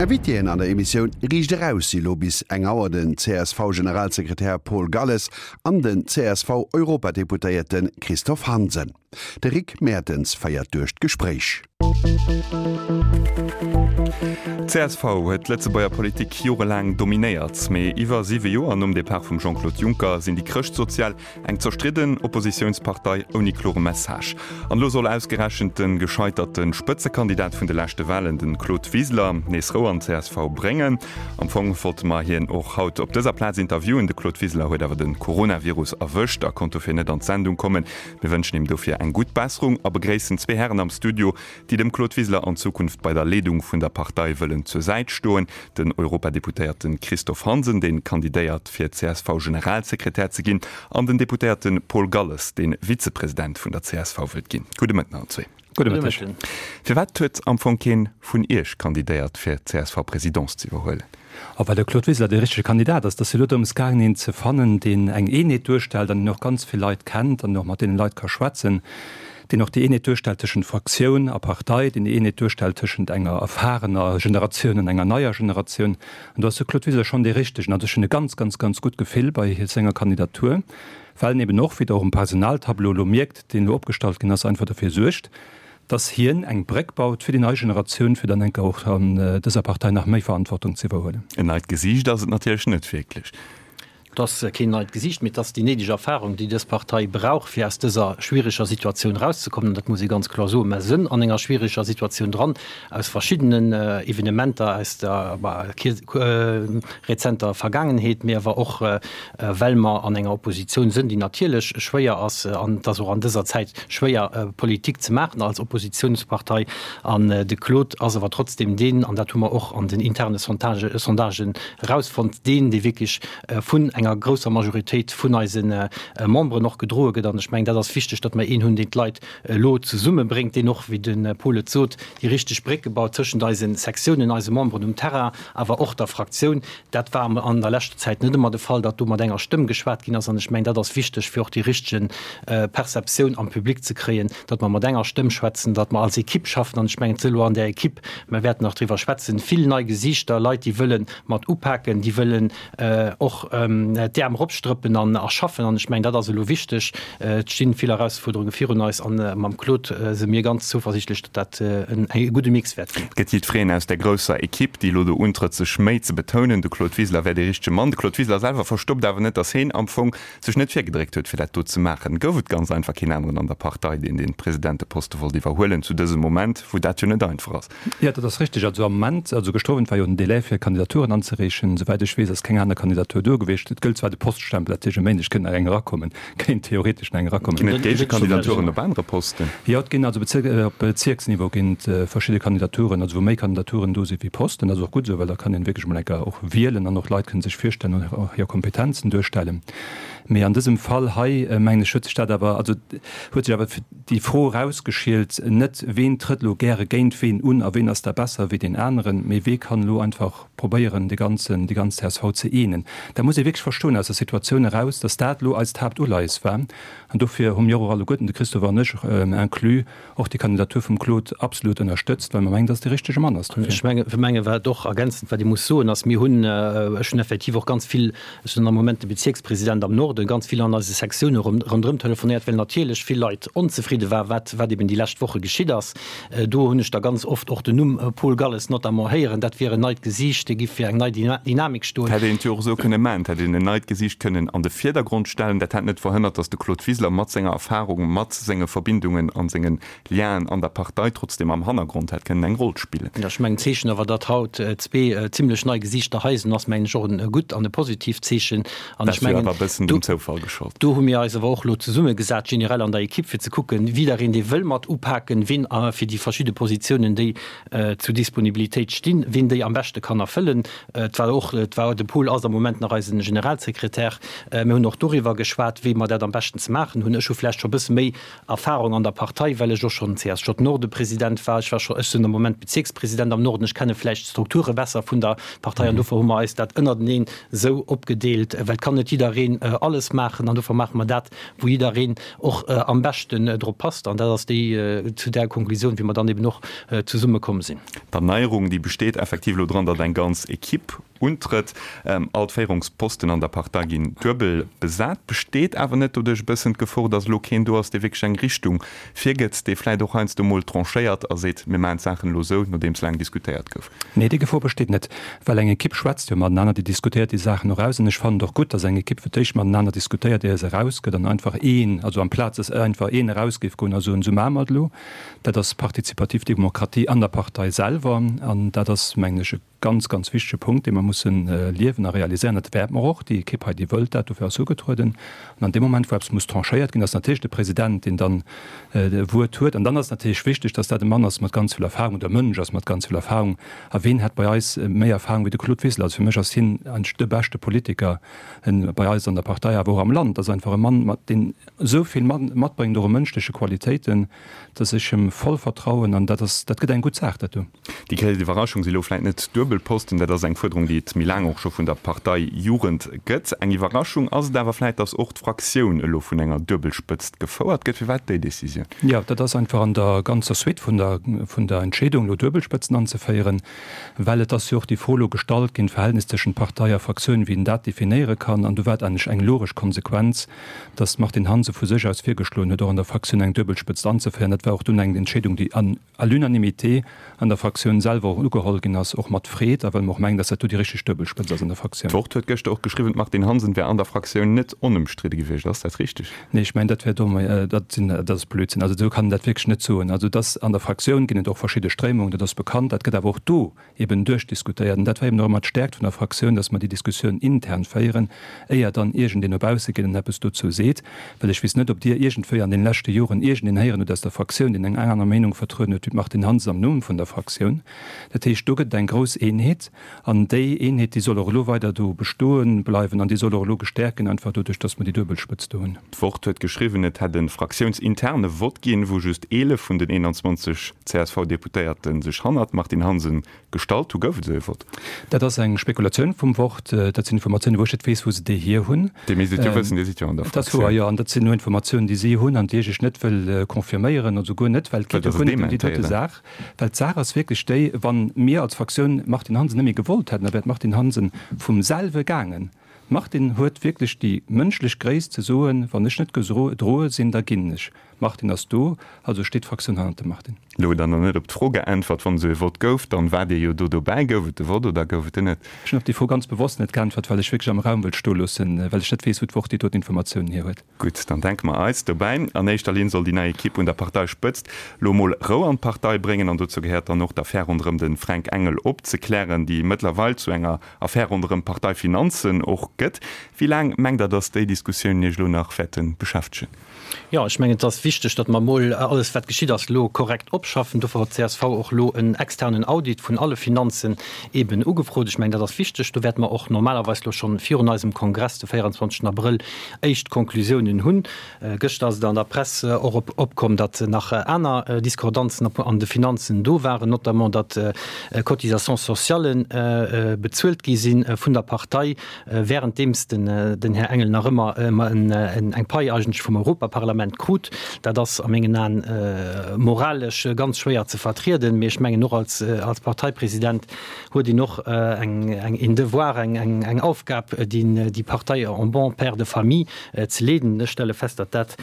Invitéen an der Emissioun Riicht Eraus si lo bis eng Auer den CSV-Generalsekretär Paul Galles an den CSV-Europadeputéierte Christophe Hansen. De Rick Mertens féiert duerch d'Gespréich. D'CSV huet d'Lëtzebuerger Politik jorelaang dominéiert. Mee iwwer siwe Joer nom Depart vum Jean-Claude Juncker sinn déi Chrëschtsozial eng zerstridden Oppositiounspartei ouni klore Message. An elo soll ausgerechent de gescheiterte Spëtzekandidat vun de leschte Walen, de Claude Wiseler, nees Rou an d'CSV bréngen. Am Fong wollte mer hien och haut op dëser Plaz interviewen. De Claude Wiseler huet awer de Coronavirus erwëscht a konnt dofir net an d'Sendung kommen. Mir wënschen him dofir eng gutt Besserung a begréissen zwee Hären am Studio, déi dem Claude Wiseler an Zukunft bei der Leedung vun der Partei wëllen zur Säit stoen, den Europadeputéierte Christophe Hansen, dee kandidéiert fir CSV-Generalsekretär ze ginn, an den Deputéierte Paul Galles, dee Vizepresident vun der csv wëllt ginn. Gudde Mëtten allen zwee. Gudde Mëtteg. Firwat huet am Fong keen vun Iech kandidéiert fir d'CSV-Presidence ze iwwerhuelen? A well de Claude Wiseler dee richtege Kandidat ass. Et ass jo elo drëms gaangen, een ze fannen, deen eng Eenheet duerstellt an deen och ganz vill Leit kennt an och mat deene Leit ka schwätzen, deen och déi Eenheet duerstellt tëschent Fraktioun a Partei, deen déi Eenheet duerstellt tëschent enger erfarener Generatioun an enger neier Generatioun. An do ass de Claude Wiseler schonn dee Richtegen. Also ech hunn e ganz, ganz, ganz gutt Gefill bei senger Kandidatur, well en eben och, wéi Der och um Personaltableau elo mierkt, deen elo opgestallt ginn ass, einfach derfir suergt, dass hien eng Bréck baut fir déi nei Generatioun, fir dann enker och an dëser Partei nach méi Verantwortung ze iwwerhuelen. En neit Gesiicht ass et natierlech net wierklech. Et ass keen neit Gesiicht, mee et ass déi néideg Erfahrung, déi dës Partei brauch, fir aus dëser schwiereger Situatioun erauszekommen. An dat muss ee ganz kloer soen. Mer sënn an enger schwiereger Situatioun dran, aus verschiddenen Evenementer aus der rezenter Vergaangenheet, mee awer och, well mer an enger Oppositioun sënn, déi natierlech schwéier ass, an et ass och an dëser Zäit schwéier, Politik ze maachen als Oppositiounspartei. An de Claude ass awer trotzdem deen, an dat hu mer och an den interne Sondagen erausfonnt, deen, dee wierklech vun enger grousser Majoritéit vun eise Memberen och gedroe gëtt. An ech mengen, dat ass wichteg, datt mer een hunn, deen d'Leit elo zesummebréngt, deen och, wéi de Paul et sot, déi richteg Brécke baut tëschent eise Sektiounen, eise Memberen um Terrain, awer och der Fraktioun. Dat war an der leschter Zäit net ëmmer de Fall, datt do mat enger Stëmm geschwat ginn ass. An ech mengen, dat ass wichteg, fir och déi richtege Perceptioun am Public ze kréien, datt mer mat enger Stëmm schwätzen, datt mer als Ekipp schaffen. An ech mengen, et si elo an där Ekipp, mer wäerten nach driwwer schwätzen, vill nei Gesiichter, Leit, déi wëlle mat upaken, déi wëllen och d'Äerm eropstrëppen an a schaffen. An ech mengen, dat ass elo wichteg. Et sti vill Erausfuerderunge virun eis an mam Claude si mir ganz zouversiichtlech, datt dat en gudde Mix wäert ginn. Et gëtt jiddwereen aus där grousser Ekipp, déi elo do untrëtt, sech méi ze betounen. De Claude Wiseler wär dee richtege Mann. De Claude Wiseler selwer verstoppt awer net, datt heen am Fong sech net virgedréckt huet, fir dat do ze maachen. Gouf et ganz einfach keen aneren an der Partei, deen dee Presidenteposte wollt iwwerhuelen zu dësem Moment, wou dat jo net einfach ass? Jo, dat ass richteg. Also am Moment, also gëschter Owend war jo den Délai fir Kandidaturen anzereechen. Souwäit ech weess, ass keng aner Kandidatur do gewiescht. Et gëllt zwar de Poststempel, dat heescht e Méindeg kënnt nach eng erakommen, kéint theoretesch nach eng erakommen. Ginn et Géigekandidaturen op anere Posten? Jo, et ginn also Bezirk, op Bezierksniveau ginn et verschidde Kandidaturen, also wou méi Kandidaturen do si wéi Posten. Dat ass och gutt esou, well da kann een wierklech emol eng Kéier och wielen an och Leit kënnen sech virstellen an och hir Kompetenzen duerstellen. Mee an dësem Fall hei, mengen ech, huet sech dat awer, also huet sech awer déi Fro erausgeschielt, net ween trëtt elo gäre géint ween un a ween ass da besser wéi deen aneren, mee wee kann elo einfach probéieren de ganzen, déi ganz csv ze eenen. Dat muss ee wierklech verstoen aus der Situatioun eraus, datt dat elo eist Haaptuleies war. An dofir hu mir och alleguerten, de Christophe an ech inclus, och déi Kandidatur vum Claude absolut ënnerstëtzt, well mer mengen, datt et dee richtege Mann ass dofir. Ech menge wat och ergänzend, wat ee muss soen, ass, mir hunn, ech hunn effektiv och ganz vill, ech sinn am Moment de Bezierkspresident am Norden, ganz vill an eise Sektioune ronderëm telefonéiert, well natierlech vill Leit onzefridde waren, wat wat eben déi lescht Woche geschitt ass. Do hunn ech da ganz oft och den Numm Paul Galles notamment héieren, dat wier en neit Gesiicht, dee giff fir eng nei Dynamik stoen. Hätt een et jo och esou kënne maachen, et hätt een en neit Gesiicht kënnen an de Virdergrond stellen. Dat hätt net verhënnert, datt de Claude Wiseler mat senger Erfahrung, mat senge Verbindungen an sengen Lienen an der Partei trotzdem am Hannergrond hätt kënnen eng Roll spillen. Jo, ech mengen, d'Zeechen awer, datt haut zwee zimlech nei Gesiichter hei sinn, ass, mengen ech, och e gutt an e positiivt Zeechen. An ech mengen, awer e bëssen dem Zoufall geschollt. Do hu mir eis awer och elo zesummegesat, generell an der Ekipp, fir ze kucken, jiddereen, dee wëll mat upaken, wien fir déi verschidde Positiounen, déi zur Disponibilitéit stinn, wien déi am beschte kann erfëllen. Et war och, et war, de Paul ass am Moment nach eise Generalsekretär. Mir hunn och doriwwer geschwat, wéi mer dat am beschten ze maachen hunn. Ech hu vläicht scho e bësse méi Erfahrung an der Partei, well ech och schonn CSJ-Norde-President war. Ech war scho, ech sinn am Moment Bezierkspresident am Norden. Ech kenne vläicht d'Strukture besser vun der Partei an dofir hu mer eis dat ënnerteneen esou opgedeelt, well et kann net jiddereen alles maachen an dofir maache mer dat, wou jiddereen och am beschten drop passt. An dat ass déi, zu där Konklusioun, wéi mer dann eben och zesumme komm sinn. D'Erneierung, déi besteet effektiv elo dran, datt eng ganz Equipe untrëtt. All d'Féierungsposten an der Partei ginn duebel besat. Besteet awer net doduerch e bëssen d'Gefor, datt elo keen do ass, dee wierklech eng Richtung virgëtt, dee vläicht och heiansdo mol tranchéiert a seet, mir maachen d'Saachen elo esou, nodeems laang diskutéiert gouf? Nee, déi Gefor besteet net, well eng Ekipp schwätzt jo matenaner, déi diskutéiert déi Saachen och aus. An ech fannen et och gutt, datt eng Ekipp fir d'éischt matenaner diskutéiert, ier se erausgëtt an einfach een, also amplaz datt einfach een eraus géif goen a soen, esou maache mer et elo. Dat ass participativ Demokratie an der Partei selwer an dat ass, mengen ech, e ganz, ganz wichtege Punkt, dee mer mussen liewen a realiséieren. Dat wäerte mer och. Déi Ekipp hei, déi wëllt dat, dofir ass se ugetrueden. An an deem Moment, wou eppes muss tranchéiert ginn, ass natierlech de President, deen dann d'Wuert huet. An dann ass et natierlech wichteg, dass dat e Mann ass mat ganz vill Erfahrung oder e Mënsch ass mat ganz vill Erfahrung. A ween hätt bei eis méi Erfahrung wéi de Claude Wiseler? Also fir mech ass hien eigentlech de beschte Politiker bei eis an der Partei, awer och am Land. Ass einfach e Mann, mat deen esou vill matbréngt, och u mënschleche Qualitéiten, dass ech him voll vertrauen an dat ass, dat gëtt eng gutt Saach, dat do. Déi gréisst Iwwerraschung si lo vläit net d'Duebelposten, dat ass eng Fuerderung, déi et méi laang och scho vun der Parteijugend gëtt. Eng Iwwerraschung ass et awer vläit, datt och d'Fraktioun elo vun enger Duebelspëtzt gefouert gëtt. Firwat déi Decisioun? Jo, dat ass einfach an der ganzer Suite vun der, vun der Entscheedung, elo Duebelspëtzen anzeféieren, well et ass jo och déi Fro elo gestallt ginn, d'Verhältnis tëschent Partei a Fraktioun, wéi een dat definéiere kann. An do war et eigentlech eng logesch Konsequenz, dass d'Martine Hansen vu sech aus virgeschloen huet, och an der Fraktioun eng Duebelspëtzt anzeféieren. Dat war och dunn eng Entscheedung, déi à l'unanimité an der Fraktioun selwer och ugeholl ginn ass, och mat Freed, a well mer och mengen, dass dat do déi richteg Duebelspëtzt ass an der Fraktioun. D'Wort huet gëschter och geschriwwen, d'Martine Hansen wär an der Fraktioun net onëmstridde gewiescht. Ass dat richteg? Nee, ech mengen, dat wär domm. Dat sinn, dat ass Blödsinn. Also esou kann een dat wierklech net soen. Also dass an der Fraktioun ginn et och verschidde Stréimungen, dat ass bekannt. Dat gëtt awer och do eben duerchdiskutéiert. An dat war eben och ëmmer d'Stärkt vun der Fraktioun, dass mer déi Diskussioun intern féieren, éier dann iergendeen no bausse geet an eppes dozou seet. Well ech weess net, ob Dir iergendwéi an deene leschte Joren iergendeen héieren hutt aus der Fraktioun, deen eng aner Meenung vertrueden huet wéi d'Martine Hansen am Numm vun der Fraktioun. Dat heescht, do gëtt et eng grouss Eenheet. An déi Eenheet, déi soll och elo weider do bestoe bleiwen an déi soll och elo gestäerkt ginn, einfach doduerch, dass mer déi duebel Spëtzt do hunn. D'Wort huet geschriwwen, et hätt e fraktiounsinterne Vott ginn, wou just 11 vun den 21 CSV-Deputéierte sech hannert d'Martine Hansen gestallt hu. Gouf et esou ee Vott? Dat ass eng Spekulatioun vum Wort. Dat sinn Informatiounen, wou ech net weess, wou se déi hier hunn. Dir misst et jo wëssen, Dir sidd jo an der Fraktioun. Dat ass wouer, jo. An dat sinn nur Informatiounen, déi si hunn an déi ech net wëll confirméieren, also guer net, well et geet jo guer net ëm déi dote Saach. Well d'Saach ass wierklech déi, Wa mir als Fraktioun d'Martine Hansen net méi gewollt hätten, da wär d'Martine Hansen vum selwe gaangen. D'Martine huet wierklech déi mënschlech Gréisst ze soen, Wann ech net gedroe sinn, da ginn ech. D'Martine ass do, also steet d'Fraktioun hannert dem Martine. Elo hutt Der nach net op d'Fro geäntwert. Wann esou e Vott gouf, dann waart Dir jo do dobäi. Gouf et de Vott oder gouf et en net? Ech hunn op déi Fro ganz bewosst net geäntwert, well ech wierklech am Raum wëllt stoe loossen, well ech net weess, wou d'Wort déi doten Informatiounen hier huet. Gutt, dann denke mer eis dobäi. An éischter Linn soll déi nei Ekipp un der Parteispëtzt lo mol Rou an d'Partei bréngen. An dozou gehéiert dann och, d'Affär ronderëm de Fränk Engel opzeklären, déi mëttlerweil zu enger Affär ronderëm d'Parteifinanzen och gëtt. Wéi laang mengt Der, datt déi Diskussiounen Iech elo nach wäerte beschäftegen? Jo, ech mengen, et ass wichteg, datt mer emol alles, wat geschitt ass, elo korrekt opschaffen. Dofir huet d'CSV och elo en externen Audit vun alle Finanzen eeben ugefrot. Ech mengen, dat ass wichteg. Do wäerte mer och normalerweis elo schonn virun eisem Kongress de 24 Abrëll éischt Konklusiounen hunn. Gëschter ass et an der Press och opkomm, datt nach aner Discordanzen an de Finanzen do waren, notamment datt Cotisations sociales bezuelt gi si vun der Partei, wärenddeems den Här Engel nach ëmmer eng Pai eigentlech vum Europaparlament krut. Dat ass a mengen Aen moralesch ganz schwéier ze vertrieden, mee ech mengen och als Parteipresident huet een och eng een Devoir, eng Aufgab, déi Partei en bon père de famille ze leeden. Ech stelle fest, datt dat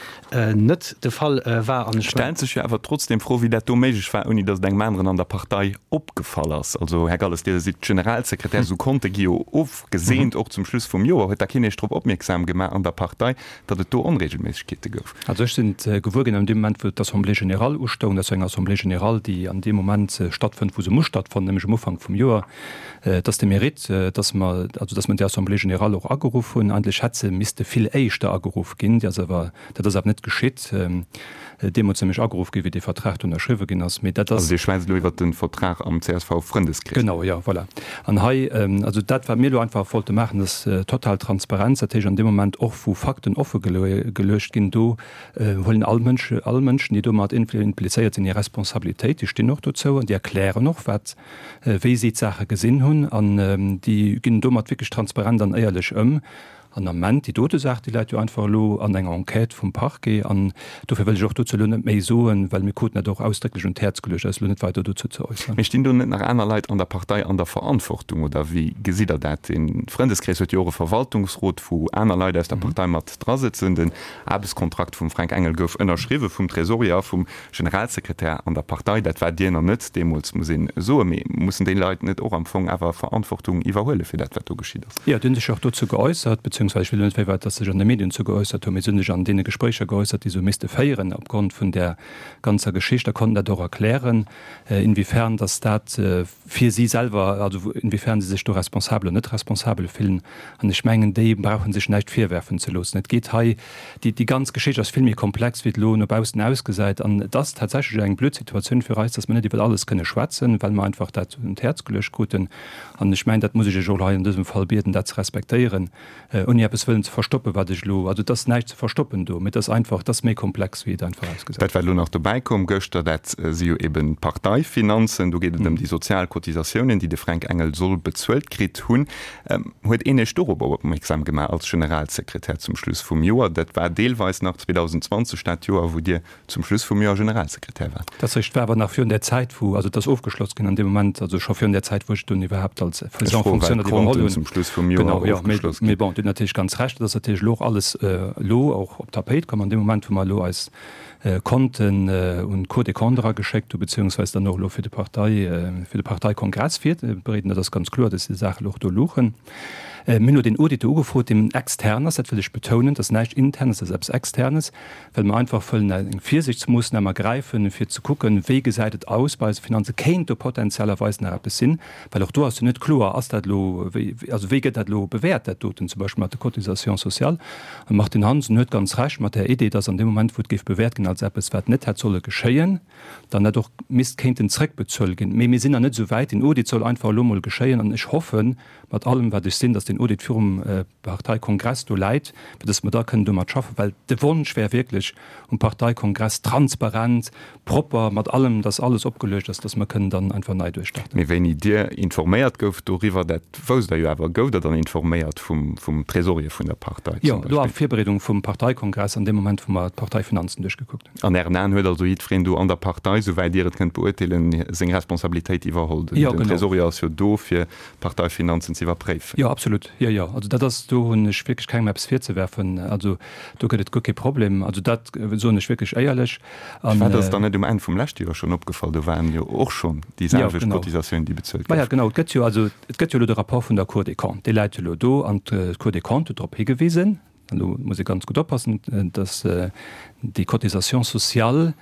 net de Fall war. An ech. Stellt sech jo awer trotzdem d'Fro, wéi dat do méiglech war, ouni datt et engem aneren an der Partei opgefall ass. Also, Här Galles, Dir sidd Generalsekretär, esou Konte gi jo ofgeseent, och zum Schluss vum Joer. Huet da keen Iech drop opmierksam gemaach an der Partei, datt et do Onregelméissegkeete gouf? Also ech sinn et gewuer ginn an deem Moment, wou d'Assemblée générale ustoung. Dat ass jo eng Assemblée générale, déi an deem Moment stattfënnt, wou se muss stattfannen, nämlech um Ufank vum Joer. Et ass de Mérite, datt mer, also datt mer déi Assemblée générale och ageruff hunn. Eigentlech hätt se misste vill éischter ageruff ginn. Déi ass awer, dat ass awer net geschitt. Deemools nämlech ageruff ginn, wéi dee Vertrag do ënnerschriwwe ginn ass. Mee dat ass. Also Dir schwätzt elo iwwert de Vertrag am CSV-Frëndeskrees? Genau, jo, voilà. An hei, also dat, wat mir elo einfach wollte maachen, ass total Transparenz. Dat heescht, an deem Moment och, wou Fakten offe geluecht ginn, do huelen all Mënsch, all Mënschen, déi domat implizéiert sinn, hir Responsabilitéit. Déi stinn och dozou an déi erklären och, wat, wéi si d'Saache gesinn hunn. An déi ginn domat wierklech transparent an éierlech ëm. An am Ament, déi dote Saach, déi läit jo einfach elo an enger Enquête vum Parquet. An dofir wëll ech och dozou elo net méi soen, well mir kruten dat och ausdrécklech un d'Häerz geluecht, eis elo net weider dozou ze äusseren. Mee stinn do net nach aner Leit an der Partei an der Verantwortung, oder wéi gesitt Der dat? De Frëndeskrees huet jo och e Verwaltungsrot, wou aner Leit aus der Partei mat drasëtzen. Den Aarbechtskontrakt vum Fränk Engel gouf ënnerschriwwe vum Tresorier a vum Generalsekretär an der Partei. Dat war Dir nach net deemools, muss een soen. Mee mussen déi Leit net och am Fong awer Verantwortung iwwerhuele fir dat, wat do geschitt ass? Jo, déi hunn sech och dozou geäussert, beziehungsweise ech wëll elo net wéi weit, datt se sech an de Medien dozou geäussert hunn, mee se hunn sech an deene Gespréicher geäussert, déi se hu misste féieren opgrond vun där ganzer Geschicht a konnten dat och erklären, inwiefern datt dat fir si selwer, also inwiefern si sech do responsabel oder net responsabel fillen. An ech mengen, déi brauche sech näischt virwerfen ze loossen. Et geet hei, déi, déi ganz Geschicht ass vill méi komplex, wéi et elo no baussen ausgesäit. An et ass tatsächlech eng blöd Situatioun fir eis, dass mer net iwwer alles kënne schwätzen, well mer einfach dat un d'Häerz geluecht kruten. An ech mengen, dat muss ech Iech och hei an dësem Fall bieden, dat ze respektéieren. Ouni eppes wëllen ze verstoppen, wat ech elo, also et ass näischt ze verstoppen do, mee et ass einfach, et ass méi komplex, wéi et einfach ausgesäit. Dat, wat elo nach dobäi koum gëschter, dat si jo eben d'Parteifinanzen. Do geet et ëm déi sozial Cotisatiounen, déi de Fränk Engel soll bezuelt kritt hunn. Huet een Iech dorobber opmierksam gemaach als Generalsekretär zum Schluss vum Joer? Dat war deelweis nach 2020, dat Joer, wou Dir zum Schluss vum Joer Generalsekretär war. Dat ass war awer nach virun där Zäit, wou, also et ass ofgeschloss ginn an deem Moment, also scho virun där Zäit, wou ech dunn iwwerhaapt als Président en fonction dat iwwerholl hunn. Zum Schluss vum Joer genau, jo, ofgeschloss ginn. Mee bon, Dir hutt natierlech ganz Recht, et ass natierlech elo och alles elo och op d'Tapéit komm an deem Moment, wou mer elo eis Konten un d'Cour des Comptes erageschéckt hu beziehungsweise dann och elo fir de Partei, fir de Parteikongress virbereeden. Dat ass ganz kloer, dass déi Saache elo och do luchen. Mir hunn elo deen Audit do ugefrot, deen extern ass, dat wëll ech betounen, dat ass näischt Internes, dat ass eppes Externes. well mer einfach wëllen eng Virsiichtsmoossnam ergräifen, fir ze kucken, wéi gesäit et aus bei eise Finanzen, kéint do potentiellerweis nach eppes sinn, well och do ass jo net kloer, ass dat elo, wéi, also wéi gëtt dat elo bewäert, dat doten, zum Beispill mat de Cotisations sociales. An de Martine Hansen huet ganz Recht mat där Idee, dass an deem Moment, wou et géif bewäert ginn als eppes, wat net hätt solle geschéien, dann dat och misst kéinten zrëckbezuel ginn. Mee mir sinn nach net esou wäit. Den Audit soll einfach elo emol geschéien an ech hoffen mat allem, wat ech sinn, dass deen Audit virum Parteikongress do läit, fir dass mer da kënnen domat schaffen, well de Wonsch wär wierklech um Parteikongress transparent, propper, mat allem, dass alles opgeluecht ass, dass mer kënnen dann einfach nei duerchstarten. Mee wéini Dir informéiert gouft doriwwer, dat wousst Der jo awer, gouft Der dann informéiert vum Tresorier vun der Partei zum Beispill? Jo, elo a Virbereedung vum Parteikongress, an deem Moment, wou mer d'Parteifinanzen duerchgekuckt hunn. An Ären Aen huet also jiddwereen do an der Partei, souwäit Dir et kënnt beurteelen, seng Responsabilitéit iwwerholl? Den Tresorier ass jo do, fir d'Parteifinanzen ze iwwerpréifen. Jo, absolut. Jo, jo. Also dat ass, do hunn ech wierklech kengem eppes virzewerfen. Also do gëtt et guer kee Problem. Also dat soen ech wierklech éierlech. An. Firwat ass et dann net um Enn vum leschte Joer schonn opgefall? Do waren jo och schonn déi selwecht Cotisatiounen, déi bezuelt goufen. Maja, genau. Et gëtt jo, also et gëtt jo elo de Rapport vun der Cour des Comptes, dee läit jo elo do. An d'Cour des Comptes huet drop higewisen, an do muss ee ganz gutt oppassen, dass déi Cotisations sociales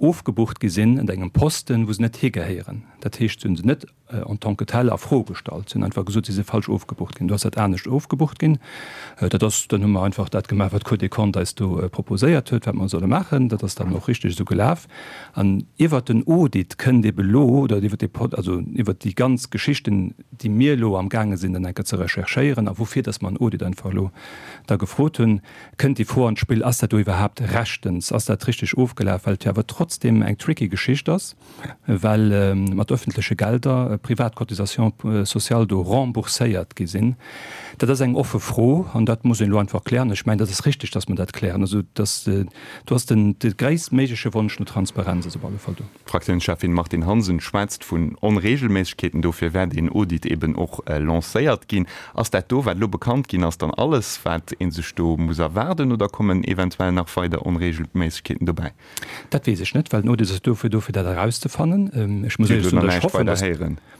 ofgebucht gi sinn ënner engem Posten, wou se net higehéieren. Dat heescht, se hu se net en tant que tel a Fro gestallt. Si hunn einfach gesot, si si falsch ofgebucht ginn. Do ass dat anescht ofgebucht ginn. Dat ass, dann hu mer einfach dat gemaach, wat d'Cour des Comptes eis do proposéiert huet, wat mer solle maachen. Dat ass dann och richteg esou gelaf. An iwwert den Audit kënnt ebe lo, oder iwwert dee, also iwwert déi ganz Geschichten, déi mir elo amgaange sinn dann eng Kéier ze recherchéieren a woufir dass mer en Audit einfach elo da gefrot hunn, kënnt déi Fro an d'Spill, Ass dat do iwwerhaapt rechtens, ass dat richteg ofgelaf, well et jo awer trotzdem eng tricky Geschicht ass, well mat öffentleche Gelder privat Cotisations sociales do rembourséiert gi sinn. Dat ass eng offe Fro an dat muss een elo einfach klären. Ech mengen, dat ass richtig, dass mer dat klären. Also dass do ass den de gréisstméigleche Wonsch no Transparenz ass op alle Fall do. D'Fraktiounscheffin Martine Hansen schwätzt vun Onreegelméissegkeeten. Dofir wär deen Audit eben och lancéiert ginn. Ass dat do, wat elo bekannt ginn ass, dann alles, wat ee sech do muss erwaarden oder kommen eventuell nach weider Onreegelméissegkeeten dobäi? Dat weess ech net, well den Audit ass dofir do, fir dat erauszefannen. Ech muss éierlech soen, datt ech hoffen, datt.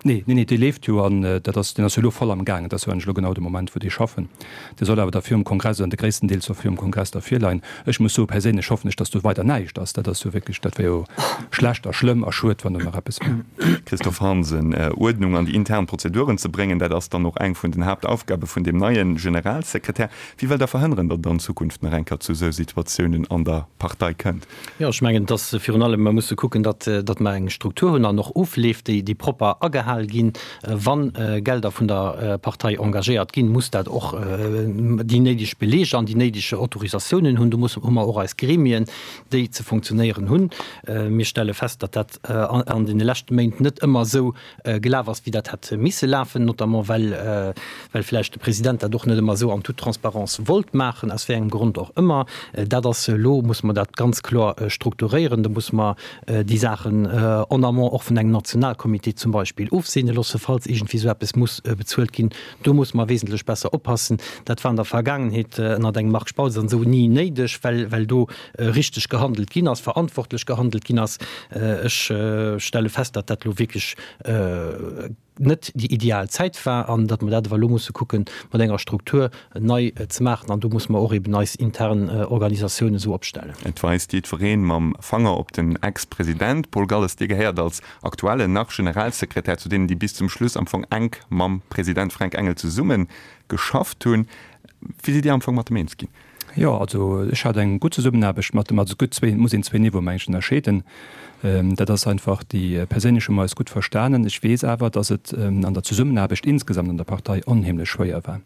Nee, nee, nee, dee leeft jo an dat ass, deen ass jo elo voll am Gaang. Et ass jo eigentlech elo genau de Moment, wou déi schaffen. Dee soll awer da virum Kongress, oder de gréissten Deel soll virum Kongress da virleien. Ech muss soen, perséinlech hoffen ech, datt do weider näischt ass. Dat ass jo wierklech, dat wär jo schlecht a schlëmm a schued, wann do nach eppes wär. Christophe Hansen, Uerdnung an déi intern Prozeduren ze bréngen, dat ass dann och eng vun den Haaptaufgabe vun deem neie Generalsekretär. Wéi wëllt Der verhënneren, datt et an Zukunft nach eng Kéier zu esou Situatiounen an der Partei kënnt? Jo, ech mengen, dass virun allem mer musse kucken, datt, datt mer eng Struktur hunn an och Ofleef, déi, déi propper agehal ginn. Wa Gelder vun der Partei engagéiert ginn, muss dat och déi néideg Beleger an déi néideg Autorisatiounen hunn. Do musse, hu mer och eis Gremien, déi ze funktionéieren hunn. Mir stelle fest, datt dat an deene leschte Méint net ëmmer esou gelaf ass, wéi dat hätt missen. misse lafen, notamment well well vläicht de President dat och net ëmmer esou an toute Transparence wollt maachen, aus wéi engem Grond och ëmmer. Dat ass elo, musse mer dat ganz kloer strukturéieren, do musse mer déi Saachen en amont och vun engem Nationalcomité zum Beispill ofseene loosse, falls iergendwéi esou eppes muss bezuelt ginn. Do musse mer wesentlech besser oppassen. Dat war an der Vergaangenheet ënnert engem Marc Spautz an esou ni néideg, well well do richteg gehandelt ginn ass, verantwortlech gehandelt ginn ass. Ech stelle fest, datt dat elo wierklech net déi ideal Zäit war an datt mer dat awer elo musse kucken, mat enger Struktur nei ze maachen. An do musse mer och eben eis intern Organisatioun esou opstellen. Et weist jiddweree mam Fanger op den Ex-President. Paul Galles, Dir gehéiert als aktuellen nach Generalsekretär zu deenen, déi bis zum Schluss am Fong enk mam President Fränk Engel zesumme geschafft hunn. Wéi sidd Dir am Fong mat em eens ginn? Jo, also ech hat eng gutt Zesummenaarbecht mat em. Also et gëtt zwee, et muss een zwee Niveaue mengen ech ënnerscheeden. Dat ass einfach déi perséinlech hu mer eis gutt verstanen. Ech weess awer, datt et an der Zesummenaarbecht insgesamt an der Partei onheemlech schwéier war.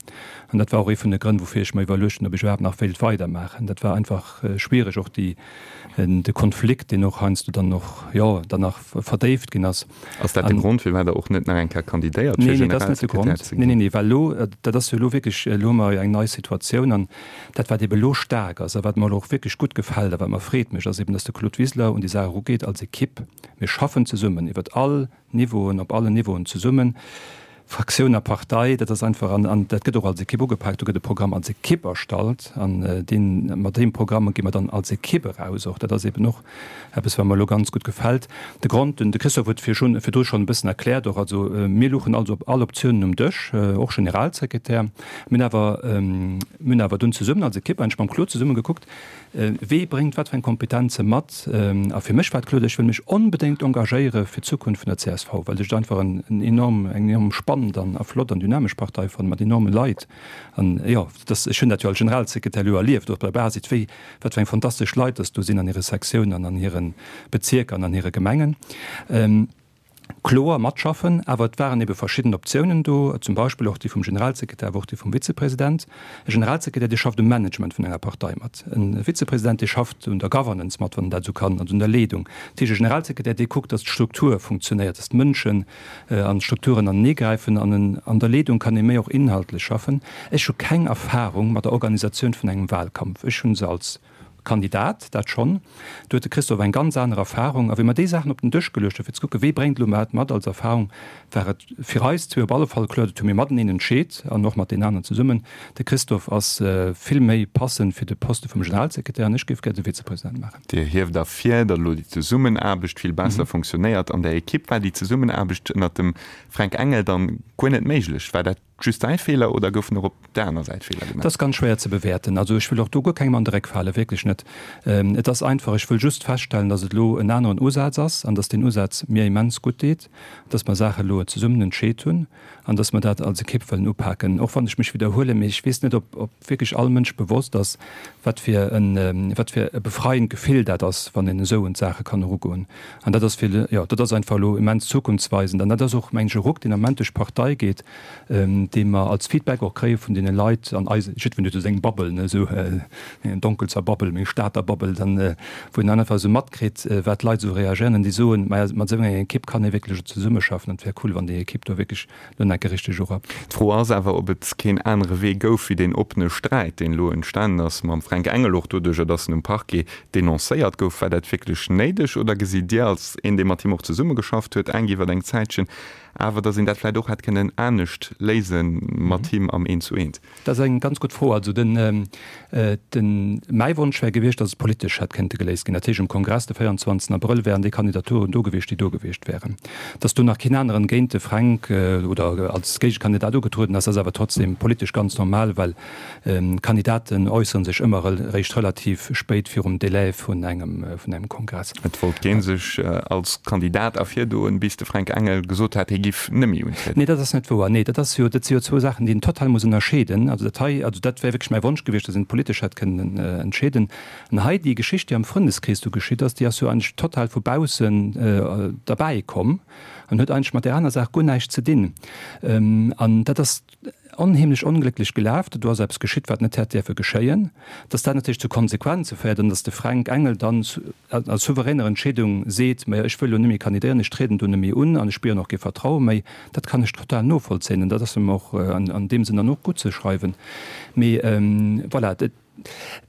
An dat war och ee vun de Grënn, woufir ech mer iwwerluecht hunn, ob ech iwwerhaapt nach wéilt weidermaachen. Dat war einfach schwiereg, och déi, de Konflikt, deen och heiansdo dann och, jo, dann nach verdéift ginn ass. Ass dat de Grond, firwat Der och net nach eng Kéier kandidéiert, fir Nee, nee, dat ass net de Generalsekretär Grond. ze Nee, ginn? nee, nee, well elo, dat ass jo elo wierklech, elo hu mer jo eng nei Situatioun an dat, wat ebe elo staark ass a wat mer elo och wierklech gutt gefält a wat mer Freed mécht, ass eben, dass de Claude Wiseler un déi Saach erugeet als Ekipp. Mir schaffen zesummen iwwert all Niveauen, op allen Niveauen zesummen, Fraktioun a Partei, dat ass einfach, an, an dat gëtt och als Ekipp ugepaakt, do gëtt e Programm als Ekipp erstallt an deen, mat deem Programm gi mer dann als Ekipp eraus och. Dat ass eben och eppes, wat mer elo ganz gutt gefält. De Grond, den de Christophe huet virschun, virdru schonn e bëssen erkläert och, also mir luchen also op all Optiounen um Dësch, och Generalsekretär. Mir hunn awer, mir hunn awer dunn zesummen als Ekipp eigentlech mam Claude zesumme gekuckt, Wee bréngt wat fir eng Kompetenze mat? A fir mech war et kloer, ech wëll mech onbedéngt engagéiere fir d'Zukunft vun der csv, well ech et einfach en enorm, eng enorm spannend an a flott an dynamesch Partei fannen, mat enorme Leit. An jo, dass, ech hunn dat jo als Generalsekretär elo erlieft, och bei der Basis, wéi, wat fir eng fantastesch Leit dass do sinn an hire Sektiounen an an hire Bezierker an an hire Gemengen. Kloer matschaffen, awer et waren ebe verschidden Optiounen do, zum Beispill och déi vum Generalsekretär, awer och déi vum Vizepresident. E Generalsekretär, dee schafft um Management vun enger Partei mat. E Vizepresident, dee schafft un der Governance mat, wann en dat esou kann, also un der Leedung. Dat heescht, e Generalsekretär, dee kuckt, datt d'Struktur funktionéiert, datt d'Mënschen an d'Strukturen aneneegräifen an en an der Leedung kann ee méi och inhaltlech schaffen. Ech hu keng Erfahrung mat der Organisatioun vun engem Wahlkampf. Ech hu se als Kandidat, dat schonn. Do huet de Christophe eng ganz aner Erfahrung. A wéi mer déi Saachen op den Dësch geluecht hunn, fir ze kucken, wee bréngt elo wat mat als Erfahrung, war et fir eis zwee op alle Fall kloer, dat hu mir mateneen entscheet an och mat deenen aneren zesummen, de Christophe ass vill méi passend fir de Poste vum Generalsekretär an ech géif gär de Vizepresident maachen. Dir hieft ervir, datt elo déi Zesummenaarbecht vill besser funktionéiert an der Ekipp. War déi Zesummenaarbecht ënnert dem Fränk Engel dann guer net méiglech? War dat Just däi Feeler oder goufen och op der aner Säit Feeler gemaach? Dat ass ganz schwéier ze bewäerten. Also ech wëll och do guer kengem an de Réck falen, wierklech net. Et ass einfach, ech wëll just feststellen, datt et elo en aneren Usaz ass an datt deen Usaz mir immens gutt deet, datt mer Saache elo zesummen entscheet hunn an datt mer dat als Ekipp wëllen upaken. Och wann ech mech widderhuelen, mee ech weess net, ob ob wierklech all Mënsch bewosst ass, wat fir en wat fir e befreiend Gefill dat ass, wann een esou un d'Saache kann erugoen. An dat ass fir, jo, dat ass einfach elo immens zukunftsweisend. An dat ass och, mengen ech, e Ruck, deen am Moment duerch d'Partei geet, dee mer als Feedback och kréie vun deene Leit an eise, jiddwereen huet esou seng Bubble, ne, esou eng Donkelzer Bubble, meng Stater Bubble, dann, wou een dann einfach esou matkritt, wat d'Leit esou reagéieren an déi soen, maja, mat esou enger Ekipp kann ee wierklech zesummeschaffen an et wär cool, wann déi Ekipp do wierklech elo nach eng Kéier richteg urappt. D'Fro ass awer, ob et keen anere Wee gouf wéi deen oppene Sträit, deen elo entstanen ass mam Fränk Engel, och doduercher, datt en um Parquet denoncéiert gouf. War dat wierklech néideg oder gesitt Dir als een, dee mat him och zesummegeschafft huet, enk iwwer eng Zäitchen, awer datt een dat vläicht och hätt kënnen anescht léise mat him am Eent-zu-Eent? Dat ass eng ganz gutt Fro. Also den, den, mäi Wonsch wär gewiescht, datt et politesch hätt kënnte geléist ginn. Dat heescht, um Kongress de 24 Abrëll wären déi Kandidaturen do gewiescht, déi do gewiescht wären. Datt do nach keen aneren géint de Fränk oder als Géigekandidat ugetrueden ass, ass awer trotzdem politesch ganz normal, well Kandidaten äussere sech ëmmer eréischt relativ spéit virum Delai vun engem, vun engem Kongress. Et wollt kee sech als Kandidat ervirdoen, bis de Fränk Engel gesot hat, hie giff nëmme untrieden. Nee, dat ass net wouer. Nee, dat ass jo, dat si jo zwou Saachen, déi een total muss ënnerscheeden. Also dat hei, also dat wär wierklech mäi Wonsch gewiescht, datt een et politesch hätt kënnen entscheeden. An hei déi Geschicht, déi am Frëndeskrees do geschitt ass, déi ass jo eigentlech total vu baussen derbäi komm an huet eigentlech mat där aner Saach guer näischt ze dinn. An dat ass. onheemlech onglécklech gelaf, do ass eppes geschitt, wat net hätt däerfe geschéien. Dass dat natierlech zu Konsequenze féiert an dass de Fränk Engel dann a souveräner Entscheedung seet, Majo, ech wëll elo net méi kandidéieren, ech trieden do net méi un an ech spieren och kee Vertraue méi, dat kann ech total novollzéien an dat ass em och an deem Sënn dann och guttzeschreiwen. Mee voilà,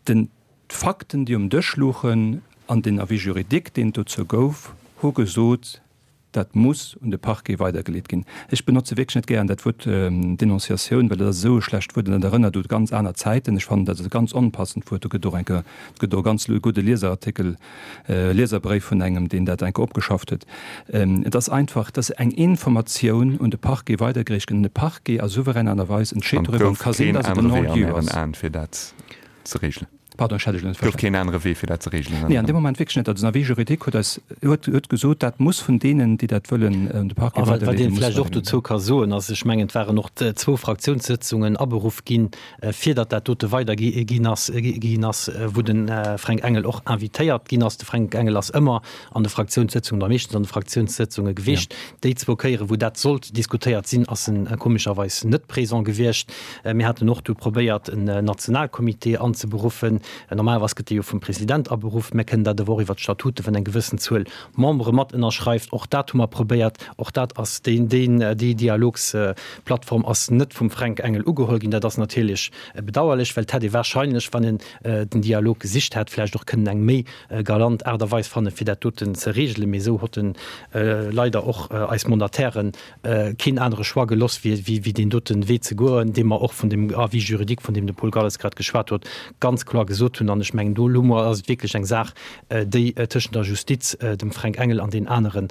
den, d'Fakten, déi um Dësch luchen an den Avis juridique, deen et dozou gouf, hu gesot, Dat muss un de Parquet weidergeleet ginn. Ech benotze wierklech net gären dat Wuert Denonciatioun, well dat ass esou e schlecht Wuert an dat erënnert u ganz aner Zäiten. Ech fannen, dat ass e ganz onpassend Wuert. Do gëtt och enke, et gëtt och e ganz gudde Lieserartikel, Lieserbréif vun engem, deen dat enke opgeschafft huet. Et ass einfach, et ass eng Informatioun un de Parquet weidergereecht ginn an de Parquet a souveräner Aart a Weis entscheet An et doriwwer an gouf et ka sinn, keen dass et en anere Wee an Non-lieu Ären ass. Aen, fir dat ze regelen? Pardon, ech hat Iech elo net Et gouf verstanen. keen anere Wee, fir dat ze regelen an Nee, an Ären deem Moment wierklech net. Also den Avis juridique huet eis, huet, huet gesot, dat muss vun deenen, déi dat wëllen, un de Parquet A wat, wat weiderleeden, een muss vläicht och weiderginn. dozou ka soen, ass, ech mengen, et waren och zwou Fraktiounssëtzungen aberuff ginn, fir datt dat dote weidergi ginn ass, ginn ass, wou de Fränk Engel och invitéiert ginn ass. De Fränk Engel ass ëmmer an de Fraktiounssëtzungen oder meeschtens an de Fraktiounssëtzunge gewiescht. Déi zwou Kéieren, wou dat sollt diskutéiert sinn, ass en komescherweis net présent gewiescht. Mir haten och du probéiert, en Nationalcomité anzeberuffen. Normalerweis gëtt dee jo vum President aberuff. Mir kënnen dat awer och iwwert d'Statuten, wann eng gewëssen Zuel Membere mat ënnerschreift. Och dat hu mer probéiert. Och dat ass, deen, deen, déi Dialogsplattform ass net vum Fränk Engel ugeholl ginn. Dat ass natierlech bedauerlech, well et hätt ee wahrscheinlech, wann en den Dialog gesicht hätt, vläicht och kënnen eng méi galant Aart a Weis fannen, fir dat doten ze regelen. Mee esou hott en leider och eis Mandatairen keen anere Choix geloss, wéi deen doten Wee ze goen, dee mer och vun dem Avis juridique, vun deem de Paul Galles grad geschwat huet, ganz kloer gesot hunn. An ech mengen, do elo ass et wierklech eng Saach, déi tëschent der Justiz, dem Fränk Engel an deenen anere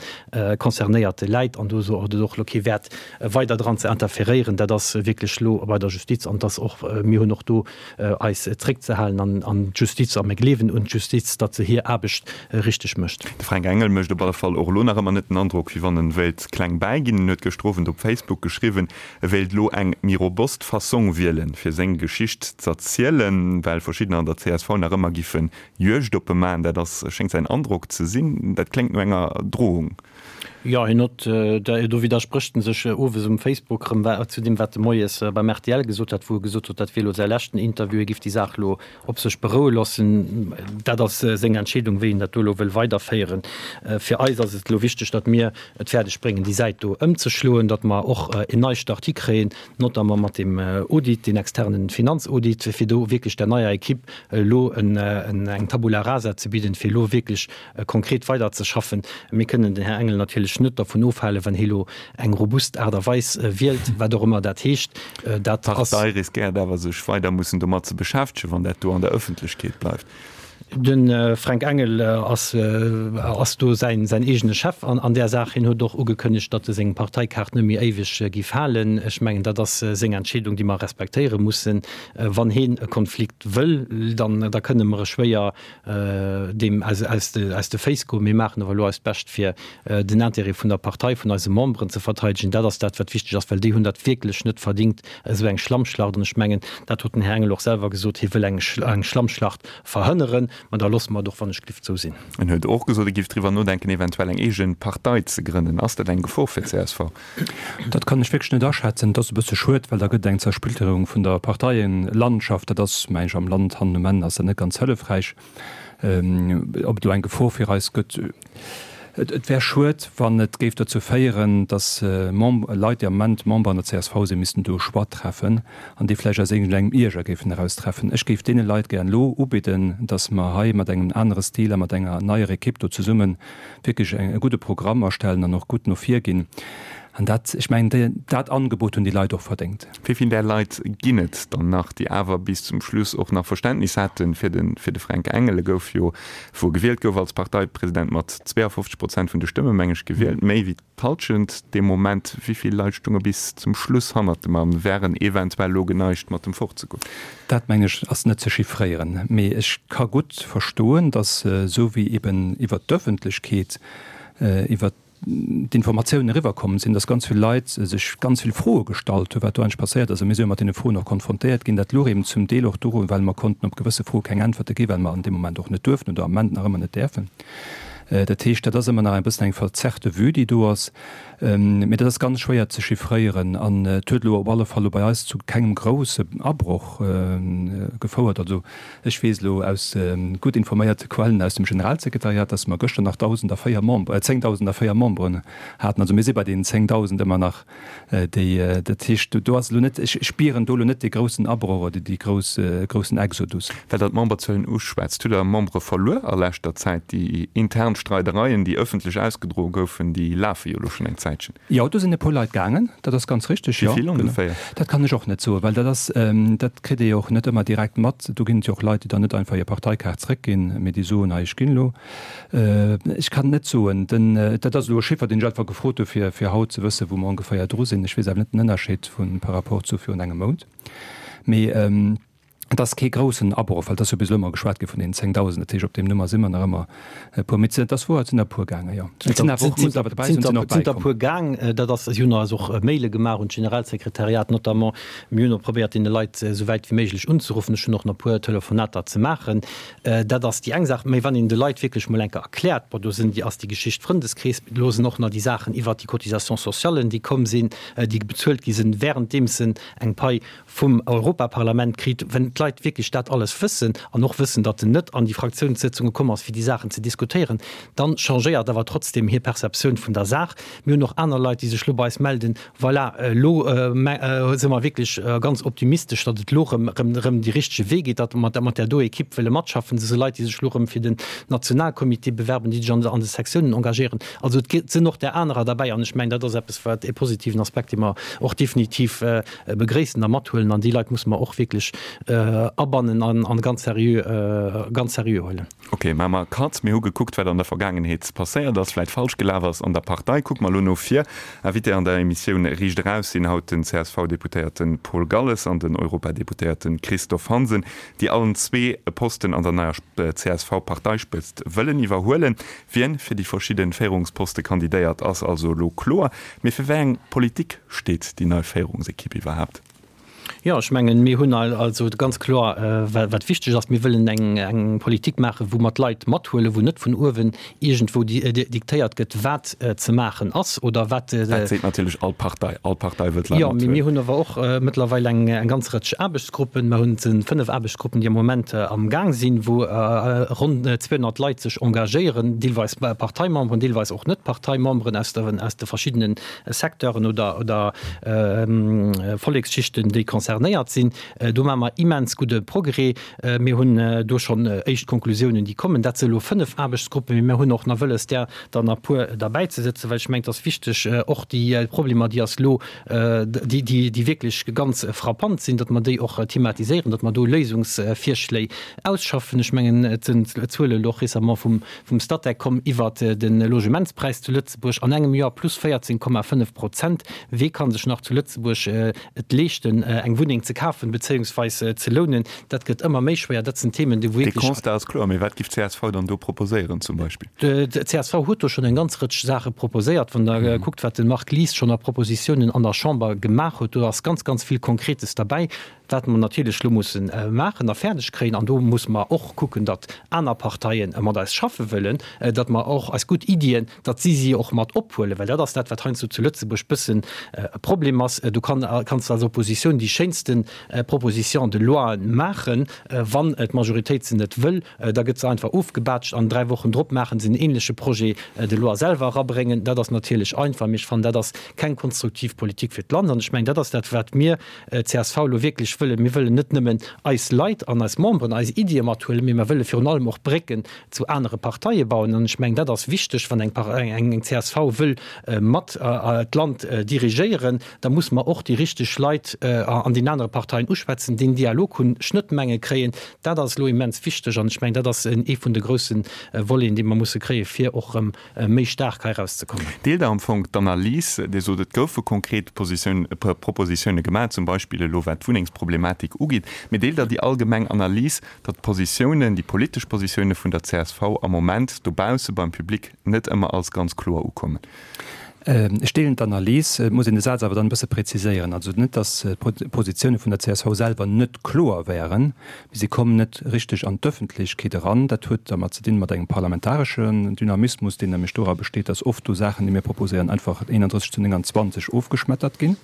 Concernéierte läit. An do huet et och elo kee Wäert, weider dran ze interferéieren. Dat ass wierklech elo bei der Justiz. An et ass och, mir hunn och do eis zréckzehalen an d'Justiz, a mir gleewen un d'Justiz, datt se hir Aarbecht richteg mécht. De Fränk Engel mécht op alle Fall och elo nach ëmmer net den Androck, wéi wann en wéilt kleng bäiginn. En huet gëschter Owend op Facebook geschriwwen, e wéilt elo eng méi robust Fassong wielen, fir seng Geschicht z'erzielen, well verschiddener an der csv nach ëmmer giffe Juegd op e maachen. Dat ass, schéngt säin Androck ze sinn. Dat kléngt no enger Drohung. Jo, hien huet, do widdersprécht en sech owes um Facebook erëm zu deem, wat e moies beim rtl gesot hat, wou e gesot huet, dat wier elo säi leschten Interview, hie giff déi Saach elo op sech beroue loossen. Dat ass seng Entscheedung, wéi en dat do elo wëll weiderféieren. Fir eis ass et elo wichteg, datt mir et fäerdeg bréngen, déi Säit do ëmzeschloen, datt mer och en Neistart hikréien, notamment mat deem Audit, deen externen Finanzaudit, fir do wierklech der neier Equipe elo eng Tabula rasa ze bidden, fir elo wierklech konkret weiderzeschaffen. Mir kënnen den Här Engel natierlech net dervun ofhalen, wann hie lo eng robust Aart a Weis wielt, wat och ëmmer dat heescht. Dat ass. D'Partei riskéiert awer, sech weider mussen domat ze beschäftegen, wann dat do an der Ëffentlechkeet bleift. De Fränk Engel ass ass do säin säin eegene Chef an an där Saach. Hien huet och ugekënnegt, datt e seng Parteikaart net méi éiweg géif halen. Ech mengen, dat ass seng Entscheedung, déi mer respektéiere mussen. Wann hien e Konflikt wëll, dann da kënne mer e schwéier deem aus aus de Féiss goen. Mir maachen awer elo eist Bescht, fir den Intérêt vun der Partei, vun eise Memberen ze verteidegen. Dat ass dat, wat wichteg ass, well déi hunn dat wierklech net verdingt, esou eng Schlammschlacht. An ech mengen, dat huet den Här Engel och selwer gesot, hie wëll eng eng Schlammschlacht verhënneren. Mä da loosse mer et och wann ech glift esou sinn. En huet och gesot, e géif driwwer nodenken, eventuell eng eege Partei ze grënnen. Ass dat eng Gefor fir d'CSV? Dat kann ech wierklech net aschätzen. Et ass e bësse schued, well da gëtt et eng Zersplitterung vun der Parteielandschaft. Dat ass, meng ech, am Land hannen um Enn ass dat net ganz hëllefräich. Ob et elo eng Gefor fir eis gëtt, et wär schued, wann et géif dozou féieren, datt Leit, déi am Moment Member an der csv sinn, missten do e Choix treffen an dee vläicht aus iergendengem Ierger géifen eraustreffen. Ech géif deene Leit gär elo ubidden, datt mer hei mat engem anere Stil a mat enger neier Ekipp do zesummen wierklech e gudde Programm erstellen an och gutt no vir ginn. An dat, ech mengen, dat Angebot hunn déi Leit och verdéngt. Wéi vill där Leit ginn et dann nach, déi awer bis zum Schluss och nach Verständnis hate fir de fir de Fränk Engel? E gouf jo, wou e gewielt gouf als Parteipresident, mat 52 Prozent vun de Stëmme, meng ech, gewielt, méi wéi d'Halschent dee Moment. Wéi vill Leit stounge bis zum Schluss hannert dem a wären eventuell elo geneigt, mat em fortzegoen? Dat, meng ech, ass net ze chiffréieren. Mee ech ka gutt verstoen, datt esou wéi eben iwwert d'Öffentlechkeet, iwwert d'Informatiounen eriwwerkomm sinn, datt ganz vill Leit sech ganz vill Froe gestallt hunn, wat do eigentlech passéiert ass. A mir si jo mat deene Froen och konfrontéiert ginn. Dat louch eben zum Deel och dorun, well mer konnten op gewësse Froe keng Äntwerte ginn, well mer an deem Moment och net duerften oder am Moment nach ëmmer net däerfen. Dat heescht, dat ass ëmmer nach e bëssen eng verzerrte Vue, déi do ass. Mee dat ass ganz schwéier ze chiffréieren an et huet elo op alle Fall elo bei eis zu kengem grousse Abroch gefouert. Also ech weess elo aus gutt informéierte Quellen aus dem Generalsekretariat, dass mer gëschter nach 1.004 Member, 10.004 Memberen haten. Also mir si bei deenen 10.000 ëmmer nach. Déi, dat heescht, do ass elo net, ech spieren do elo net dee groussen Abroch oder dee grouss, groussen Exodus. Well Der d'Memberzuelen uschwätzt, hutt Der Membere verluer a leschter Zäit? Déi intern Streidereien, déi ëffentlech ausgedroe goufen, déi lafe jo elo schonn eng Zäitchen. Jo, do sinn e puer Leit gaangen, dat ass ganz richteg, jo. Wéi vill ongeféier? Dat kann ech och net soen, well dat ass, dat kritt ee jo och net ëmmer direkt mat. Do ginn et jo och Leit, déi dann net einfach hir Parteikaart zréckginn, mee déi soen, hei, ech ginn elo. Ech kann et net soen. Den, dat ass elo e Chiffer, deen ech einfach gefrot hu fir, fir haut ze wëssen, wou mer ongeféier dru sinn. Ech weess awer net den Ënnerscheed vu par rapport zu virun engem Mount. Mee et ass kee groussen Abroch, well et ass jo bis elo ëmmer geschwat gi vun deenen 10.000. Dat heescht, op deem Nummer si mer nach ëmmer e puer. Mee et ass wouer, et sinn der e puer gaangen, jo. Et sinn awer och, muss awer dobäi soen, et sinn och bäikomm. Et sinn der e puer gaang. Dat ass, si hunn eis och Maile gemaach un d'Generalsekretariat notamment. Mir hunn och probéiert, deene Leit esou wäit wéi méiglech unzeruffen. Ech hunn och nach e puer Telefonater ze maachen. Dat ass déi eng Saach. Mä wann een de Leit wierklech mol eng Kéier erkläert, bon, do sinn déi, ass déi Geschicht Frëndeskrees, elo sinn och nach déi Saachen iwwert déi Cotisations sociales, déi komm sinn, déi bezuelt gi sinn, währenddeems en eng Pai vum Europaparlament kritt. Wenn d'Leit wierklech dat alles wëssen an och wëssen, datt en net an déi Fraktiounssëtzunge komm ass, fir déi Saachen ze diskutéieren, dann changéiert awer trotzdem hir Perceptioun vun der Saach. Mir hunn och aner Leit, déi sech elo bei eis melden, Voilà, elo si mer wierklech ganz optimistesch, datt et elo erëm, erëm, erëm dee richtege Wee geet, datt mer mat där do Ekipp wëlle matschaffen. Et si Leit, déi sech elo erëm fir den Nationalcomité bewerben, déi sech an de Sektiounen engagéieren. Also et sinn och där anerer derbäi an ech mengen, dat ass eppes, wat e positiven Aspekt, dee mer och definitiv begréissen a mathuelen. An déi Leit musse mer och wierklech abannen an ganz seriö, ganz seriö huelen. Ok, maache mer e Cut. Mir hu gekuckt, wat an der Vergaangenheet passéiert ass, vläit falsch gelaf ass an der Partei. Kucke mer elo no vir. Invité an der Emissioun Riicht Eraus sinn haut den CSV-Deputéierte Paul Galles an den Europadeputéierte Christophe Hansen, déi allen zwee e Posten an der neier CSV-Parteispëtzt wëllen iwwerhuelen. Wien fir déi verschidde Féierungsposte kandidéiert, ass also elo kloer. Mee fir wéi eng Politik steet déi nei Féierungsekipp iwwerhaapt? Jo, ech mengen, mir hunn also ganz kloer, wat wichteg ass, Mir wëllen eng Politik maachen, wou mer d'Leit mathuelen, wou net vun uewen iergendwou diktéiert gëtt, wat ze maachen ass oder wat. Dat seet natierlech all Partei. All Partei wëll d'Leit mathuelen. Jo, mee mir hunn awer och mëttlerweil eng ganz Rëtsch Aarbechtsgruppen. Mer hunn 5 Aarbechtsgruppen, déi am Moment am Gaang sinn, wou ronn 200 Leit sech engagéieren, deelweis Parteimemberen, deelweis och net Parteimemberen aus de verschiddenen Secteuren oder, oder Volleksschichten, déi concernéiert sinn. Do maache mer immens gudde Progrès. Mir hunn do schonn éischt Konklusiounen, déi kommen. Dat si elo 5 Aarbechtsgruppen, mee mir hunn och nach wëlles, där der nach e puer derbäizesëtzen, well ech mengen, et ass wichteg, och déi Problemer, déi ass elo, déi, déi, déi wierklech ganz frappant sinn, datt mer déi och thematiséieren, datt mer do Léisungsvirschléi ausschaffen. Ech mengen, et sinn Zuele elo och récemment vum, vum Statec komm iwwert de Logementspräis zu Lëtzebuerg an engem Joer plus 14,5 Prozent. Wee kann sech nach zu Lëtzebuerg et leeschten, eng Wunneng ze kafen bezéiungsweis ze lounen? Dat gëtt ëmmer méi schwéier. Dat sinn Themen, déi wou wierklech. De Constat ass kloer, mee wat giff d'CSV dann do proposéieren zum Beispill? D'CSV huet do schonn eng ganz Rëtsch Saache proposéiert. Wann Der kuckt, wat de Marc Lies schonn a Propositiounen an der Chamber gemaach huet, do ass ganz, ganz vill Konkretes derbäi. Wat mer natierlech elo musse maachen a fäerdeg kréien, an do musse mer och kucken, datt aner Parteie mat eis schaffe wëllen, datt mer och eis gutt Iddien, datt si si och mat ophuelen, well dat ass dat, wat heiansdo zu Lëtzebuerg bëssen e Problem ass. Du kann, kanns als Oppositioun déi schéinste Propositions de loien maachen, wann d'Majoritéit se net wëll, da gëtt se einfach ofgebaatscht an 3 Wochen drop maache se en ähnleche Projet de loi selwer erabréngen. Dat ass natierlech einfach, mee ech fannen, dat ass keng konstruktiv Politik fir d'Land. An ech mengen, dat ass dat, wat mir csv elo wierklech wëllen, mir wëllen net nëmmen eis Leit an eis Memberen, eis Iddie mathuelen, mee mer wëlle virun allem och Brécken zu anere Parteie bauen. An ech mengen, dat ass wichteg, wann eng csv wëll mat d'Land dirigéieren, da muss mer och déi richteg Leit an den anere Parteien uschwätzen, deen Dialog hunn, Schnëttmenge kréien. Dat ass elo immens wichteg an ech mengen, dat ass ee vun de grousse Voleten, déi mer musse kréien, fir och erëm méi staark hei erauszekommen. Deelt Der am Fong d'Analys, Dir sot, et goufe konkret Propositioune gemaach, zum Beispill elo wat d'Wunnengsproblematik ugeet, mee deelt Der déi allgemeng Analys, datt d'Positiounen, déi politesch Positioune vun der csv am Moment dobausse beim Public net ëmmer als ganz kloer ukommen? Ech deelen d'Analys. Et muss een de Saz awer dann e bësse präziséieren. Also net, datt d'Positioune vun der csv selwer net kloer wären, mee si kommen net richteg an d'Ëffentlechkeet eran. Dat huet dermat ze dinn, mat engem parlamentareschen Dynamismus, deen nämlech dora besteet, datt oft do Saachen, déi mir proposéieren, einfach 31 zu 29 ofgeschmettert ginn.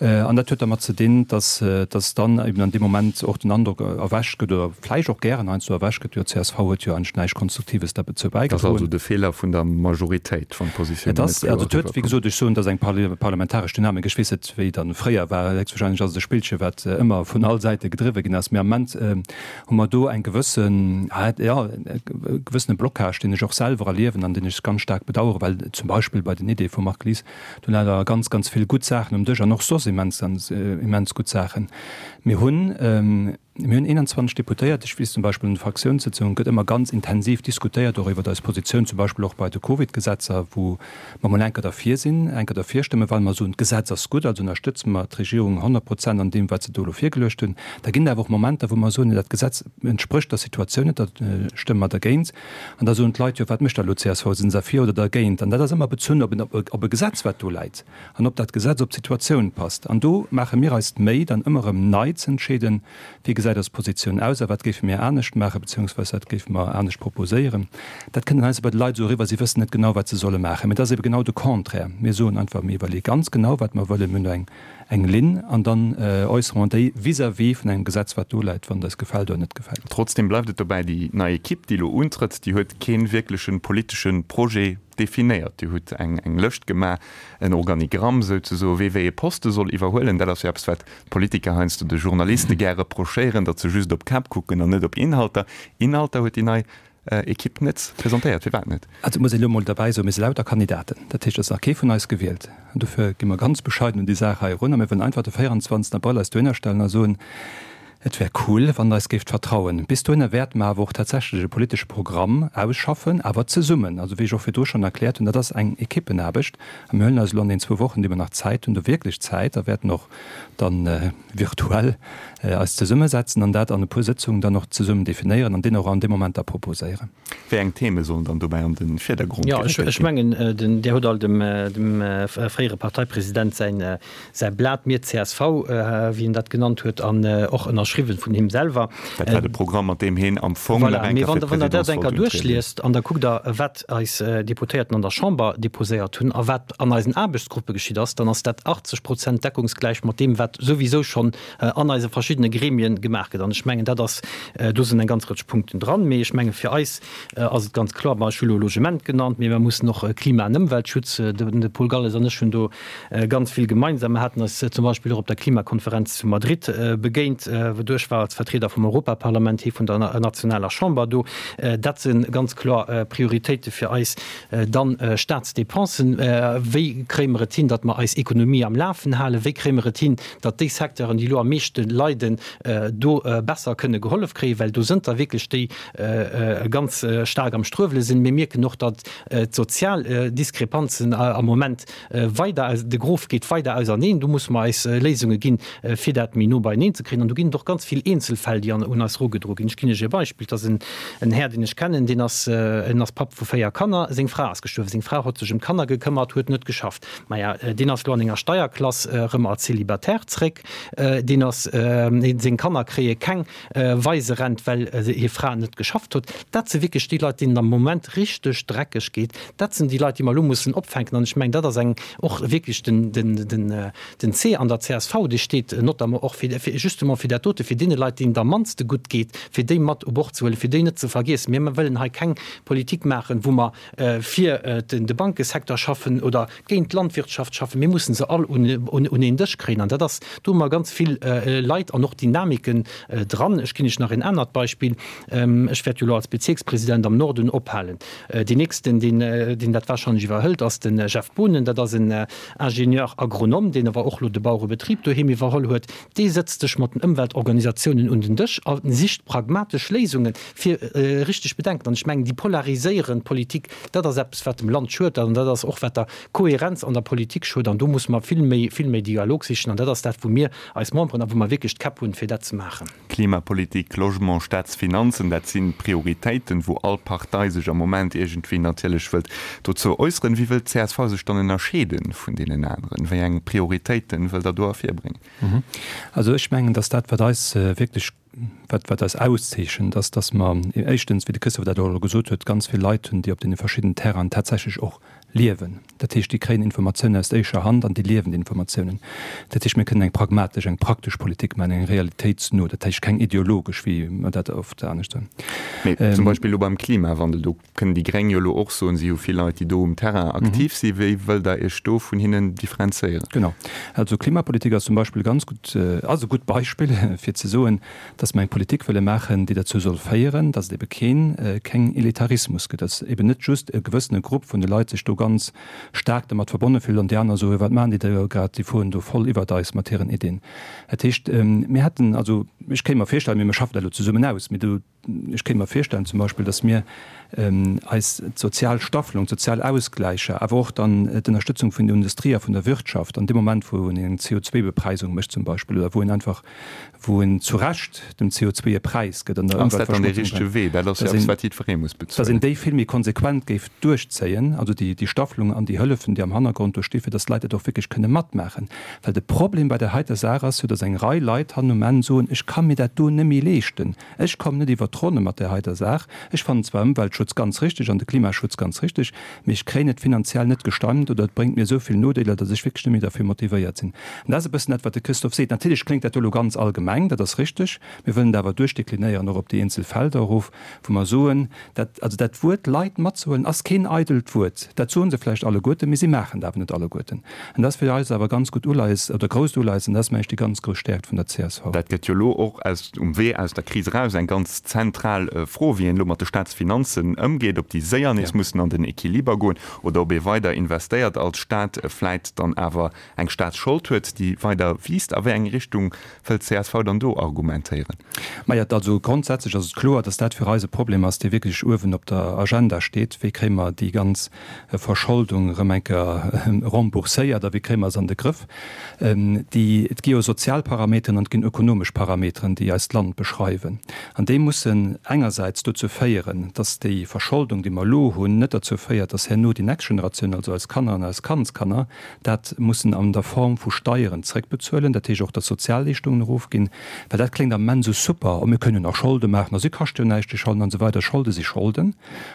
An dat huet dermat ze dinn, datt datt dann eben an deem Moment och den Androck erwächt gëtt, oder vläicht och gären heiansdo erwächt gëtt, jo csv huet jo eigentlech näischt Konstruktives derbezou Dat ass also bäigedroen. de Feeler vun der Majoritéit, wann d'Positiounen Et net ass, kloer also et huet, wéi eriwwerkommen. gesot, ech soen, et ass eng parlamentaresch Dynamik. Ech weess net, wéi dann fréier war. Héchstwahrscheinlech ass et e Spillche wat ëmmer vun all Säite gedriwwe ginn ass. Mee am Moment hu mer do eng gewëssen, jo, e gewëssene Blocage, deen ech och selwer erliewen an deen ech ganz staark bedauern, well zum Beispill bei den Ideeë vum Marc Lies, Do leie der ganz, ganz vill gutt Saachen um Dësch an och soss immens, immens gutt Saachen. Mir hunn, mir hunn 21 Deputéiert. Ech weess zum Beispill, an de Fraktiounssëtzungen gëtt ëmmer ganz intensiv diskutéiert, och iwwert eis Positioun, zum Beispill och bei de Covid-Gesetzer, wou mer mol enker derfir sinn, enker derfir stëmmen, well mer soen, d'Gesetz ass gutt, also ënnerstëtze mer d'Regierung 100 Prozent an deem, wat se do elo virgeluecht hunn. Da ginn et awer och Momenter, wou mer soen, dat Gesetz entsprécht der Situatioun net, da stëmme mer dergéint. An da soen d'Leit, jo wat mécht da elo d'CSV, sinn se derfir oder dergéint? An dat ass ëmmer bezunn op en, op e Gesetz wat do läit an ob dat Gesetz op d'Situatioun passt. An do maache mir eis d'Méi dann ëmmer erëm nei ze entscheeden, wéi gesäit eis Positioun aus a wat géife mir anescht maachen, beziehungsweise wat géife mer anescht proposéieren. Dat kënnt dann heiansdo bei de Leit esou eriwwer, si wëssen net genau wat se solle maachen. Mee dat ass ebe genau de Contraire. Mir soen einfach, mir iwwerleeë ganz genau wat mer wëllen, mir hunn do eng eng Linn an dann äussere mer déi vis-à-vis vun engem Gesetz, wat do läit, wann et eis gefält oder net gefält. Trotzdem bleift et dobäi, déi nei Ekipp, déi elo untrëtt, déi huet kee wierkleche politesche Projet definéiert. Dir hutt eng Lëscht gemaach, en Organigramm souzesoen, wee wéi ee Poste soll iwwerhuelen. Dat ass jo eppes, wat d'Politiker heiansdo de Journaliste gär reprochéieren, datt se just op Käpp kucken an net op Inhalter. Inhalter huet déi nei Ekipp net presentéiert. Firwat net? Also et muss een elo emol derbäi soen, mir si lauter Kandidaten. Dat heescht, et ass nach kee vun eis gewielt. An dofir gi mer ganz bescheiden un déi Saach hei erun a mir wëllen einfach de 24 Abrëll eis dohinner stellen a soen, Et wär cool, wann Der eis géift vertrauen. Bis dohinner wäerte mer awer och tatsächlech e politesche Programm ausschaffen, awer zesummen. Also wéi ech och virdru schonn erkläert hunn, dat ass eng Ekippenaarbecht a mir huelen eis elo an den zwou Wochen, déi mer nach Zäit hunn, do wierklech Zäit a wäerten och dann virtuell eis zesummesetzen an dat an e puer Sëtzungen dann och zesummen definéieren an deen och an deem Moment da proposéieren. Wéi eng Theme sollen dann dobäi an de Virdergrond Jo, ech, geréckelt ech ginn? mengen, den, Dir hutt all dem, dem fréiere Parteipresident säin, säi Blat Mir csv, wéi en dat genannt huet, an och ënnerschriwwen vun him selwer. Dat war de Programm, mat deem heen am Fong nach Voilà, eng mee Kéier wann fir Der, wann Der dat d'Presidence eng Kéier wollt untrieden. duerchliest an da kuckt Der, wat eis Deputéierten an der Chamber deposéiert hunn a wat an eisen Aarbechtsgruppe geschitt ass, dann ass dat 80 Prozent deckungsgläich mat deem, wat souwisou schonn an eise verschiddene Gremien gemaach gëtt. An ech mengen, dat ass, do sinn eng ganz Rëtsch Punkten dran. Mee ech menge fir eis ass et ganz kloer, ech hu lo Logement genannt, mee mer mussen och Klima an Ëmweltschutz, de Paul Galles an ech hunn do ganz vill gemeinsam. Mer haten eis zum Beispill och op der Klimakonferenz zu Madrid begéint, wou ech war als Vertrieder vum Europaparlament, hie vun der nationaler Chamber do. Dat si ganz kloer Prioritéite fir eis. Dann Staatsdepensen, Wéi kréie mer et hin, datt mer eis Ekonomie am Lafen halen? Wéi kréie mer et hin, datt déi Secteuren, déi elo am meeschte leiden, do besser kënne gehollef kréien? Well do sënn der wierklech déi ganz staark am Struewele sinn. Mir mierken och, datt d'sozial Diskrepanzen am Moment weider, de Grof geet weider auserneen. Do musse mer eis Léisunge ginn, fir dat méi no beieneen ze kréien. An do ginn et och ganz vill Eenzelfäll, déi un eis erugedroe ginn. Ech ginn Iech e Beispill, Et ass en Här, deen ech kennen, deen ass, en ass Papp vu 4 Kanner. Seng Fra ass gestuerwen. Seng Fra huet sech ëm d'Kanner gekëmmert, huet net geschafft. Maja, deen ass elo an enger Steierklass erëm als Célibataire zréck. Deen ass, seng Kanner kréie keng Waiserent, well hir Fra net geschafft huet. Dat si wierklech déi Leit, deenen et am Moment richteg dreckeg geet. Dat sinn déi Leit, déi mer elo mussen opfänken. An ech mengen, dat ass eng och wierklech den, den, den, den C an der csv, dee steet notamment och fir, fir justement fir dat dote, fir deene Leit, deenen et am mannste gutt geet, fir déi mat u Bord ze huelen, fir déi net ze vergiessen. Mir wëllen hei keng Politik maachen, wou mer fir den, de Bankesecteur schaffen oder géint d'Landwirtschaft schaffen. Mir mussen se all un, un, un een Dësch kréien. An dat ass, do hu mer ganz vill Leit an och Dynamiken dran. Ech ginn Iech nach een anert Beispill. Ech wäert jo elo als Bezierkspresident am Norden ophalen. Deen nächsten, deen, deen dat warscheinlech iwwerhëlt, ass de Jeff Boonen. Dat ass en Ingénieur agronome, deen awer och elo de Bauerebetrib doheem iwwerholl huet. Dee sëtzt sech mat den Ëmweltorganisatiounen. Organisatiounen un den Dësch a sicht pragmatesch Léisungen, fir richteg Bedenken. An ech mengen, déi polariséierend Politik, dat ass eppes, wat dem Land schuet an dat ass och, wat der Kohärenz an der Politik schuet. An do musse mer vill méi, vill méi Dialog sichen. An dat ass dat, wou mir eis Memberen a wou mer wierklech d'Käpp hunn, fir dat ze maachen. Klimapolitik, Logement, Staatsfinanzen, dat si Prioritéiten, wou all Partei sech am Moment iergendwéi natierlech wëllt dozou äusseren. Wéi wëllt d'CSV sech dann ënnerscheede vun deenen aneren? Wéi eng Prioritéiten wëllt Der do ervirbréngen? Also ech mengen, datt dat, wat eis wierklech, wat, wat eis auszeechent, ass, datt mer éischtens, wéi de Christophe dat och elo gesot huet, ganz vill Leit hunn, déi op deene verschiddenen Terrainen tatsächlech och liewen. Dat heescht, déi kréien Informatiounen aus éischer Hand an déi liewen déi Informatiounen. Dat heescht, mir kënnen eng pragmatesch, eng praktesch Politik maachen, eng realitéitsno, dat heescht keng ideologesch, wéi mer dat oft anescht soen. Mee zum Beispill elo beim Klimawandel, do kënnen déi Gréng jo elo och soen, si hu vill Leit, déi do um Terrain aktiv sinn. Wéi wëllt Der Iech do vun hinnen differenzéieren? Genau. Also Klimapolitik ass zum Beispill e ganz gutt, ass e gutt Beispill, fir ze soen, dass mer eng Politik wëlle maachen, déi derzou soll féieren, dass et ebe keen, keng Elitarismus gëtt, dass eben net just e gewëssene Grupp vun de Leit sech do ganz staark dermat verbonne fillt an déi aner soen, wat maachen déi da grad, déi fueren do voll iwwert eis mat hiren Iddien. Dat heescht, mir hätten, also ech kéint mer virstellen, mee mir schaffen dat elo zesummen aus, mee do, Ech kéint mer virstellen zum Beispill, datt mir eis d'sozial Staffelung, d'sozial Ausgläicher, awer och dann d'Ënnerstëtzung vun der Industrie a vun der Wirtschaft an deem Moment, wou een eng CO2-Bepreisung mécht zum Beispill oder wou een einfach, wou een zu Recht dem CO2 e Präis gëtt an der Ass dat dann dee richtege Wee? Dat ass jo eppes, wat jiddweree muss bezuelen. Datt een déi vill méi konsequent géif duerchzéien, also déi Staffelung an déi Hëllefen, déi am Hannergrond do sti fir datt d'Leit dat och wierklech kënne matmaachen. Well de Problem bei där heiter Saach ass jo, datt eng Rei Leit hannen um Enn soen, ech ka mir dat do net méi leeschten. Ech kommen net iwwert d'Ronne mat där heiter Saach. Ech fannen zwar Ëmweltschutz ganz richtig an de Klimaschutz ganz richtig, mee ech kréien et finanziell net gestemmt oder et bréngt mir esou vill Nodeeler, datt ech wierklech net méi derfir motivéiert sinn. An dat ass e bëssen dat, wat de Christophe seet. Natierlech kléngt dat do elo ganz allgemeng, dat ass richtig. Mir wëllen et awer duerchdeklinéieren och op déi eenzel Felder erof, wou mer soen, dat, also dat Wuert Leit matzehuelen ass keen eidelt Wuert. Dat soe se vläicht alleguerten, mee si maachen et awer net alleguerten. An dat ass fir eis awer e ganz gutt Uleies oder grousst Uleies an dat ass, mengen ech, déi ganz grouss Stäerkt vun der csv. Dat gëtt jo elo och aus, um Wee aus der Kris eraus eng ganz zentral Fro, wéi een elo mat de Staatsfinanzen ëmgeet, ob déi séier nees mussen an den Equiliber goen oder ob ee weider investéiert als Staat, vläit dann awer eng Staatsschold huet, déi weider wiisst. A wéi eng Richtung wëllt csv dann do argumentéieren? Maja, also grondsätzlech ass et kloer, datt dat fir eis e Problem ass, dee wierklech uewen op der Agenda steet. Wéi kréie mer déi ganz Verscholdung erëm eng Kéier rembourséiert a wéi kréie mer se an de Grëff? Déi, et gi jo sozial Parameteren an et ginn ökonomesch Parameteren, déi eist Land beschreiwen. An déi mussen engersäits dozou féieren, datt déi Verscholdung, déi mer elo hunn, net derzou féiert, datt herno déi nächst Generatioun, also eis Kanner an eis Kandskanner, dat mussen an der Form vu Steieren zréckbezuelen, dat heescht och, datt d'Sozialleeschtungen erofginn, well dat kléngt am Moment esou super, oh mir kënnen jo nach Scholde maachen a si kascht jo näischt, déi Scholden an esou weider. Scholde si Scholden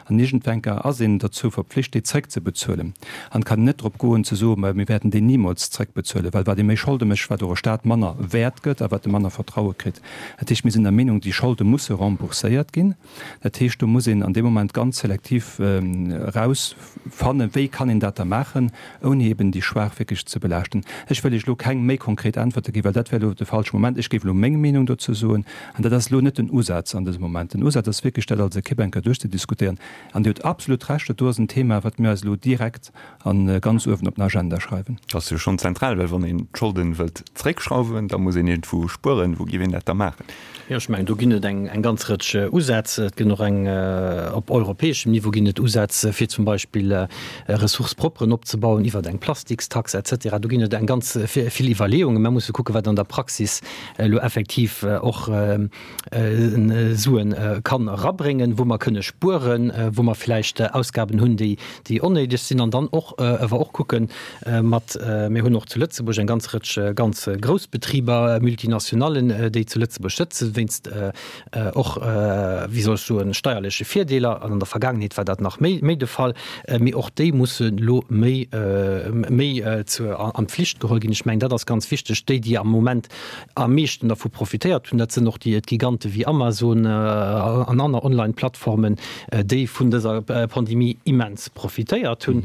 an iergendwenker ass een derzou verpflicht, déi zréckzebezuelen an et kann een net drop goen ze soen, mä mir wäerten déi nimools zréckbezuelen, well wat ee méi Scholde mécht, wat och e Stat manner wäert gëtt a wat e manner Vertraue kritt. Dat heescht, mir sinn der Meenung, déi Scholde musse rembourséiert ginn. Dat heescht, do muss een an deem Moment ganz selektiv erausfannen, wéi kann een dat da maachen, ouni eben déi Schwaach wierklech ze belaaschten. Ech wëll Iech elo keng méi konkret Äntwerte ginn, well dat wär elo de falsche Moment. Ech géif elo meng Meenung dozou soen, an dat ass elo net den Usaz an dësem Moment. Den Usaz ass wierklech, dat als Ekipp eng Kéier duerchzediskutéieren. An Dir hutt absolut Recht, dat do ass en Thema, wat mir eis elo direkt a ganz uewen op den Agenda schreiwen. Dat ass jo schonn zentral, well wann een d'Scholden wëllt zréckschrauwen, da muss een iergendwou spueren. Wou géif een dat da maachen? Jo, ech mengen, do ginn et eng ganz Rëtsch Usätz. Et gëtt och eng, op europäeschem Niveau ginn et Usätz, fir zum Beispill Ressources propres opzebauen iwwer eng Plastikstax et cetera. Do ginn et eng ganz vill Iwwerleeungen. Mer musse kucken, wat an der Praxis elo effektiv och Suen kann erabréngen, wou mer kënne spueren, wou mer vläicht Ausgaben hunn, déi onnéideg sinn. An dann och awer och kucken mat, mir hunn och zu Lëtzebuerg eng ganz Rëtsch ganz grouss Betriber, Multinationallen, déi zu Lëtzebuerg sëtzen, wéinst och, wéi soll ech soen, steierleche Virdeeler. An an der Vergaangenheet war dat nach méi méi de Fall. Mee och déi mussen elo méi méi zur an d'Pflicht geholl ginn. Ech mengen, dat ass ganz wichteg. Déi, déi am Moment am meeschten dervu profitéiert hunn, dat sinn och déi Gigante wéi Amazon an aner Online-Plattformen, déi vun dëser Pandemie immens profitéiert hunn.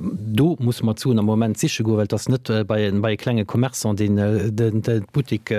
Do musse mer d'Suen am Moment siche goen, well et ass net bei e klenge Commerçant, deen de Buttek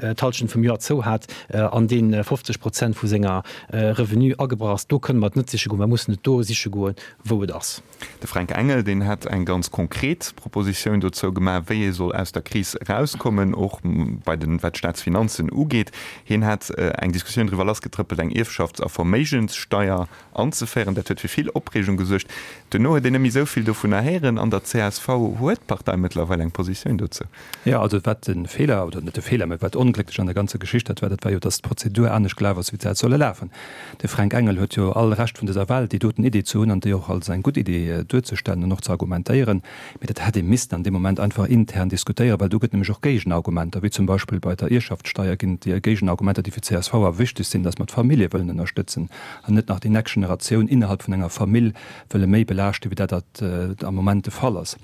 d'Hallschent vum Joer zou hat an dee 50 Prozent. Prozent vu senger Revenu agebrach ass. Do kënne mer et net siche goen. Mer mussen et do siche goen, wou et ass. De Fränk Engel, deen hätt eng ganz konkret Propositioun dozou gemaach, wéi ee soll aus der Kris erauskommen, och bei den, wat d'Staatsfinanzen ugeet. Hien hätt eng Diskussioun driwwer lassgetrëppelt, eng Ierfschafts a Verméigenssteier anzeféieren. Dat huet fir vill Opreegung gesuergt. Duerno huet een net méi esou vill dovunner héieren. An der csv huet d'Partei mëttlerweil eng Positioun dozou. Jo, also wat de Feeler, oder net de Feeler, mä wat onglécklech an der ganzer Geschicht dat war, dat war jo, datt d'Prozedur anescht gelaf ass, wéi se hätt solle lafen. De Fränk Engel huet jo all Recht vun dëser Welt, déi doten Idee ze hunn an déi och als eng gutt Idee duerzestellen an och ze argumentéieren. Mee dat hätt ee missten an deem Moment einfach intern diskutéieren, well do gëtt nämlech och Géigenargumenter, wéi zum Beispill bei der Ierschaftssteier ginn et Géigenargumenter, déi fir d'CSV awer wichteg sinn, datt mer d'Famillje wëllen ënnerstëtzen an net nach déi nächst Generatioun innerhalb vun enger Famill wëlle méi belaaschten, wéi dat dat am Moment de Fall ass.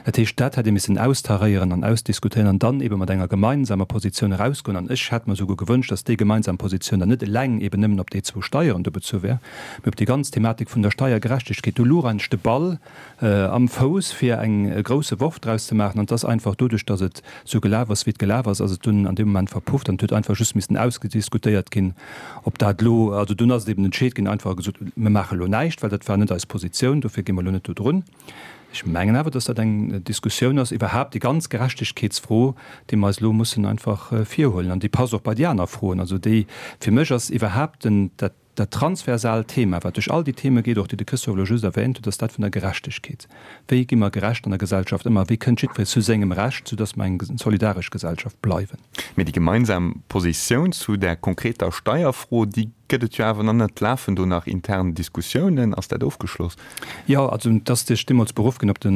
Dat heescht, dat hätt ee missen austaréieren an ausdiskutéieren an dann eebe mat enger gemeinsamer Positioun erausgoen. An ech hätt mer esouguer gewënscht, datt déi gemeinsam Positioun dann net eleng eeben nëmmen op déi zwou Steieren do bezu wär, mee op déi ganz Thematik vun der Steiergerechtegkeet. Do louch eigentlech de Ball am Fouss, fir eng e grousse Worf draus ze maachen. An et ass einfach doduerch, datt et esou gelaf ass, wéi et gelaf ass, ass et dunn an deem Moment verpufft an et huet einfach just missen ausgediskutéiert ginn, ob dat elo, also dunn ass et eben entscheet ginn, einfach gesot, mir maache elo näischt, well dat war net eis Positioun, dofir gi mer elo net do drun. Ech mengen awer, datt dat eng Diskussioun ass, iwwerhaapt déi ganz Gerechtegkeetsfro, déi mer eis elo mussen einfach virhuelen an déi passt och bei déi aner Froen. Also déi, fir mech ass iwwerhaapt den, dat, Dat transversaalt Thema, wat duerch all déi Theme geet, och déi de Christophe elo just erwähnt huet, ass dat vun der Gerechtegkeet. Wéi gi mer gerecht an der Gesellschaft ëm a wéi kënnt jiddweree zu sengem Recht, soudass mer eng solidaresch Gesellschaft bleiwen? Mee déi gemeinsam Positioun zu där konkreter Steierfro, déi gëtt et jo awer nach net. Lafen do nach intern Diskussiounen? Ass dat ofgeschloss? Jo, also et ass sech deemools beruff ginn op de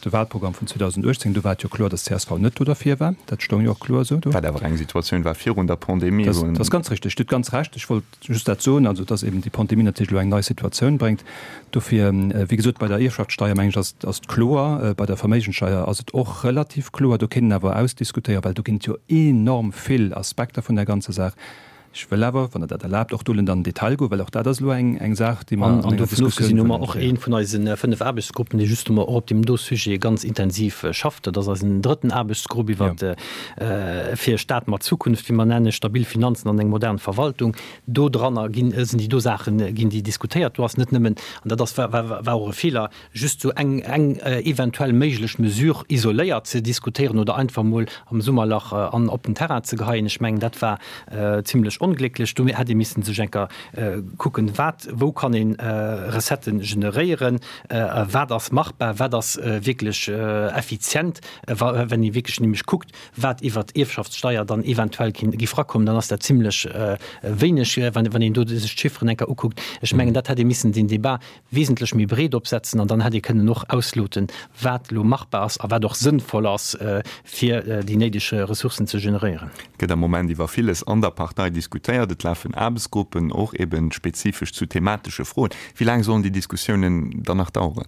Wahlprogramm vun 2018. Do war et jo kloer, datt csv net do derfir war. Dat stoung jo och kloer esou do. Wat awer eng Situatioun war virun der Pandemie. Dat ass ganz richteg. Dir hutt ganz Recht. Ech wollt just dat soen, also datt eben déi Pandemie natierlech elo eng nei Situatioun bréngt. Dofir, wéi gesot, bei der Ierfschaftssteier, mengen ech, ass ass et kloer. Bei der Verméigenssteier ass et och relativ kloer. Do kéint een awer ausdiskutéieren, well do ginn et jo enorm vill Aspekter vun där ganzer Saach. Ech wëll awer, wann Der dat erlaabt, och do net an den Detail goen, well och dat ass elo eng eng Saach, déi mer an enger Diskussioun wëllen. An dovun ofgesinn hu mer och ee vun eise 5 Aarbechtsgruppen, dee justement och op deem do Sujet ganz intensiv schafft. Dat ass eisen drëtten Aarbechtsgrupp iwwert fir e Staat mat Zukunft, wéi mer nennen, stabil Finanzen an eng modern Verwaltung. Do dranner ginn, sinn déi do Saachen, ginn déi diskutéiert. Do ass net nëmmen, an dat ass, war, war och e Feeler, just sou eng, eng eventuell méiglech Mesure isoléiert ze diskutéieren oder einfach emol am Summerlach an op den Terrain ze geheien. Ech mengen, dat war zimlech onglécklech. Do hätt ee missen sech enker kucken, wat, wou kann ee Recettë generéieren, wat ass machbar, wat ass wierklech effizient. Wa, wenn ee wierklech nämlech kuckt, wat iwwert d'Ierfschaftssteier dann eventuell géif erakommen, dann ass dat zimlech wéineg, wann een do sech d'Chifferen enker ukuckt. Ech mengen, dat hätt ee missen den Débat wesentlech méi breet opsetzen an dann hätt ee kënnen och ausloten, wat elo machbar ass a wat och sënnvoll ass, fir déi néideg Ressourcen ze generéieren. Et gëtt am Moment iwwer villes an der Partei diskutéiert. Et lafen Aarbechtsgruppen, och eben spezifesch zu thematesche Froen. Wéi laang sollen déi Diskussiounen dann nach daueren?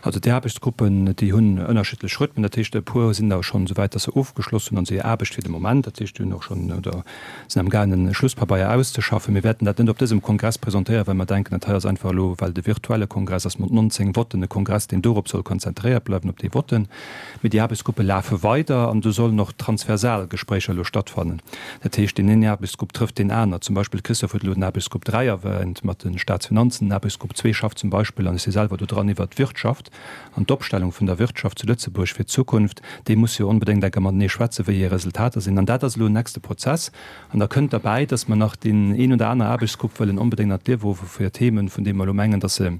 Also déi Aarbechtsgruppen, déi hunn ënnerschiddlech Rhythmen. Dat heescht, e puer sinn der schonn esou wäit, datt se ofgeschloss hunn an hir Aarbecht fir de Moment. Dat heescht, déi hunn och schonn oder sinn am gaangen e Schlusspabeier auszeschaffen. Mir wäerten dat net op dësem Kongress presentéieren, well mer denken, dat hei ass einfach elo, well de virtuelle Kongress ass mat 19 Votten e Kongress, deen dorop soll konzentréiert bleiwen, op déi Votten. Mee déi Aarbechtsgruppe lafe weider an do sollen och transversal Gespréicher elo stattfannen. Dat heescht, deen een Aarbechtsgrupp trëfft deen aner. Zum Beispill, Christophe huet elo den Aarbechtsgrupp 3 erwähnt mat de Staatsfinanzen. Den Aarbechtsgrupp 2 schafft zum Beispill, an ech si selwer do dran, iwwert d'Wirtschaft an d'Opstellung vun der Wirtschaft zu Lëtzebuerg fir d'Zukunft. Déi musse jo onbedéngt enker matenee schwätzen, wéi hir Resultater sinn. An dat ass elo en nächste Prozess. An da kënnt derbäi, dass mer nach deen een oder aner Aarbechtsgrupp wëllen onbedéngt an d'Liewe ruffe fir Themen, vun deene mer elo mengen, dass se,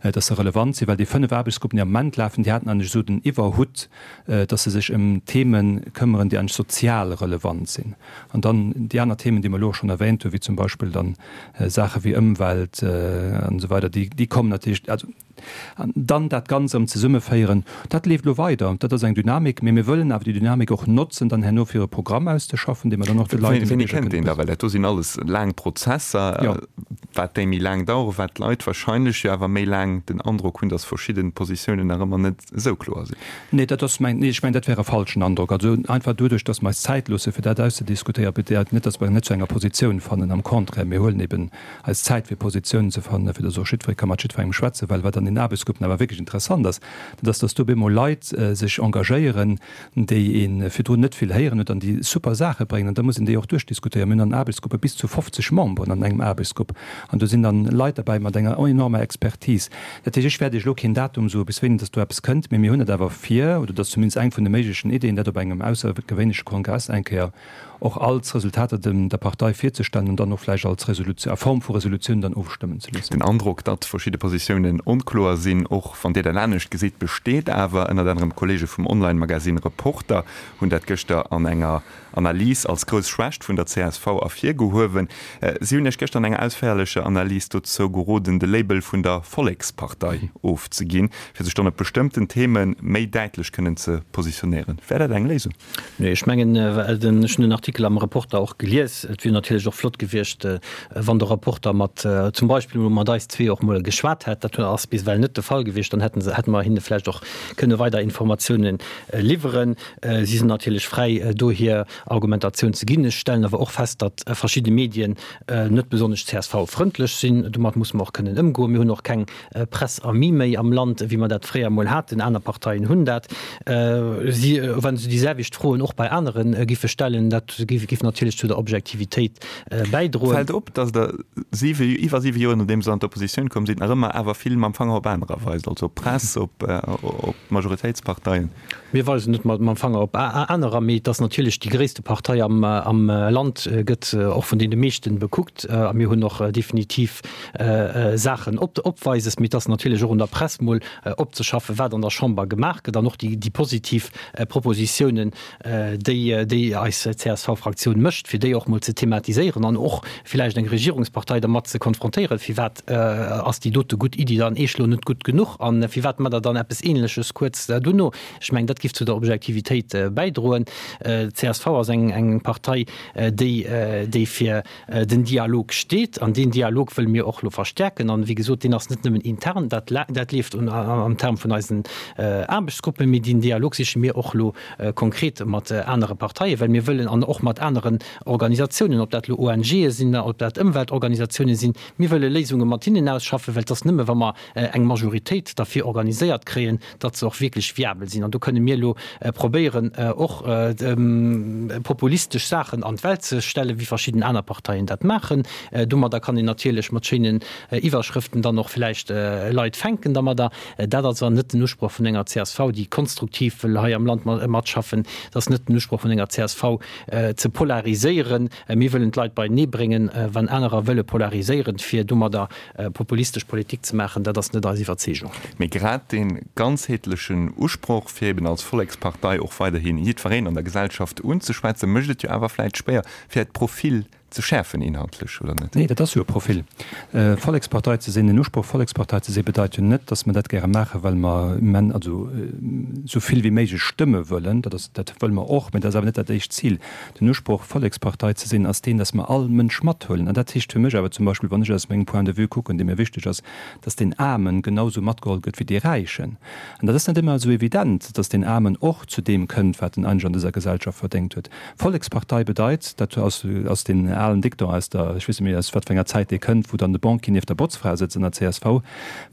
dass se relevant sinn. Well déi 5 Aarbechtsgruppen, déi am Moment lafen, déi haten eigentlech esou den Iwwerhutt, dass se sech ëm Theme këmmeren, déi eigentlech sozial relevant sinn. An dann déi aner Themen, déi mer elo och schonn erwähnt hunn, wéi zum Beispill dann Saache wéi Ëmwelt an esou weider, déi, déi kommen natierlech, also, An dann dat Ganzt erëm zesummeféieren, dat leeft elo weider. Dat ass eng Dynamik, mee mir wëllen awer déi Dynamik och notzen, dann herno fir e Programm auszeschaffen, dee mer dann och de Leit, de Wéini kënnt deen da? Well dat do sinn alles laang Prozesser, wat déi méi laang daueren, wat d'Leit wahrscheinlech jo awer méi laang den Androck hunn, datt verschidde Positiounen nach ëmmer net esou kloer sinn. Nee, dat ass mäin, nee, ech mengen, dat wär e falschen Androck. Also einfach doduerch, datt mer eis Zäit loosse fir dat auszediskutéieren, bedeit net, datt mer net zu enger Positioun fannen. Am Contraire, mir huelen eben eis Zäit fir Positiounen ze fannen, fir datt och jiddweree ka mat jiddwerengem schwätzen, well wat an. den Aarbechtsgruppen awer wierklech interessant ass, dat ass, dass do op eemol Leit sech engagéieren, déi ee virdrun net vill héieren huet an déi super Saache bréngen. An da muss een déi och duerchdiskutéieren. Mir hunn an Aarbechtsgruppe bis zu 50 Memberen an engem Aarbechtsgrupp an do sinn dann Leit derbäi mat enger enormer Expertise. Dat heescht, ech wäert Iech elo keen Datum soen, bis wéini dass do eppes kënnt, mee mir hunn et awer vir, oder dat ass zumindest eng vun de méiglechen Ideeën, dat op engem aussergewéinleche Kongress eng Kéier och als Resultater dem der Partei virzestellen an dann och vläicht als Resolutioun, a Form vu Resolutioun dann ofstëmmen ze loossen. Den Androck, datt verschidde Positiounen onkloer sinn, och wann Dir dat anescht gesitt, besteet awer. Ënnert anerem d'Kolleege vum Online-Magasinn Reporter hunn dat gëschter an enger Analys als grouss Schwächt vun der csv ervirgehuewen. Si hunn Iech gëschter an enger ausféierlecher Analys dozou geroden, de Label vun der Vollekspartei ofzeginn, fir sech dann op bestëmmten Theme méi däitlech kënnen ze positionéieren. Wär dat eng Léisung? Nee, ech mengen, ech hunn den Artikel am Reporter och gelies. Et wier natierlech och flott gewiescht, wann de Reporter mat, zum Beispill emol mat eis zwee och emol geschwat hätt. Dat ass bis ewell net de Fall gewiescht. Dann hätten se, hätte mer hinne vläicht och kënne weider Informatiounen liwweren. Si sinn natierlech fräi, do hir Argumentatioun ze ginn. Ech stellen awer och fest, datt verschidde Medien net besonnesch CSV-frëndlech sinn. Domat musse mer och kënnen ëmgoen. Mir hunn och keng Presse amie méi am Land, wéi mer dat fréier emol haten. Aner Parteien hunn dat. Si, wa se déi selwecht Froen och bei anere giffe stellen, dat giff natierlech zu der Objektivitéit bäidroen. Fält op, datt Der siwe, iwwer siwe Joer nodeems Der an d'Oppositioun komm sidd, nach ëmmer awer vill mam Fanger op anerer weist, also op d'Press, op d'Majoritéitsparteien. Mir weisen net mam Fanger op anerer, mee et ass natierlech déi gréisste Partei am Land, gëtt och vun deene meeschten bekuckt. A mir hunn och definitiv Saachen opweises. Mee et ass natierlech och un der Press mol opzeschaffen, wat an der Chamber gemaach gëtt an och déi positiv Propositiounen, déi déi eis CSV-Fraktioun mécht, fir déi och mol ze thematiséieren an och villäicht eng Regierungspartei dermat ze konfrontéieren, firwat ass déi dote gutt Iddi dann eech lo net gutt genuch a firwat mat der dann eppes Ähnleches kuerz duerno. Ech mengen, dat giff zu der Objektivitéit bäidroen. D'CSV ass eng Partei, déi déi fir den Dialog steet an deen Dialog wëlle mir och elo verstärken. An, wéi gesot, deen ass net nëmmen intern, dat dat leeft am Term vun eisen Aarbechtsgruppen, mee deen Dialog siche mir och elo konkret mat anere Parteien, well mir wëllen, an och mat aneren Organisatiounen, ob dat elo ONGe sinn, ob dat Ëmweltorganisatiounen sinn, mir wëlle Léisunge mat hinnen ausschaffen, well et ass nëmme wa mer eng Majoritéit derfir organiséiert kréien, datt se och wierklech viabel sinn. An do kënne mir elo probéieren, och populistesch Saachen an d'Welt ze stellen, wéi verschidden aner Parteien dat maachen. Domadder kann een natierlech mat schéinen Iwwerschrëften dann och vläicht Leit fänken dermadder. Dat ass awer net den Usproch vun enger csv, déi konstruktiv wëll hei am Land matschaffen. Et ass net den Usproch vun enger csv, ze polariséieren. Mir wëllen d'Leit beienee bréngen. Wann anerer wëlle polariséieren, fir domadder Populistesch Politik ze maachen, dat ass net eis Iwwerzeegung. Mee grad dee ganzheetlechen Usproch, fir eben als Vollekspartei och weiderhi jiddwereen an der Gesellschaft unzeschwätzen, mécht et jo awer vläit schwéier, fir äert Profil ze schäerfen inhaltlech, oder net? Nee, dat ass jo e Profil. Vollekspartei ze sinn, den Usproch Vollekspartei ze sinn, bedeit jo net, datt mer dat gäre maachen, well mer immen, also esou vill wéi méiglech Stëmme wëllen. Dat ass, dat wëlle mer och, mä dat ass awer net dat éischt Zil. Den Usproch, Vollekspartei ze sinn, ass deen, dass mer all Mënsch mathuelen. An dat heescht fir mech awer zum Beispill, wann ech aus mengem Point de vue kucken, dee mir wichteg ass, dass deen Aarmen genausou matgeholl gëtt wéi dee Räichen. An dat ass net ëmmer esou evident, dass deen Aarmen och zu deem kënnt, wat en eigentlech an dëser Gesellschaft verdéngt huet. Vollekspartei bedeit, dat ass ass deen alen Dicton aus der, ech weess net méi aus wat fir enger Zäit dee kënnt, wou dann de Banquier nieft der Botzfra sëtzt an der csv.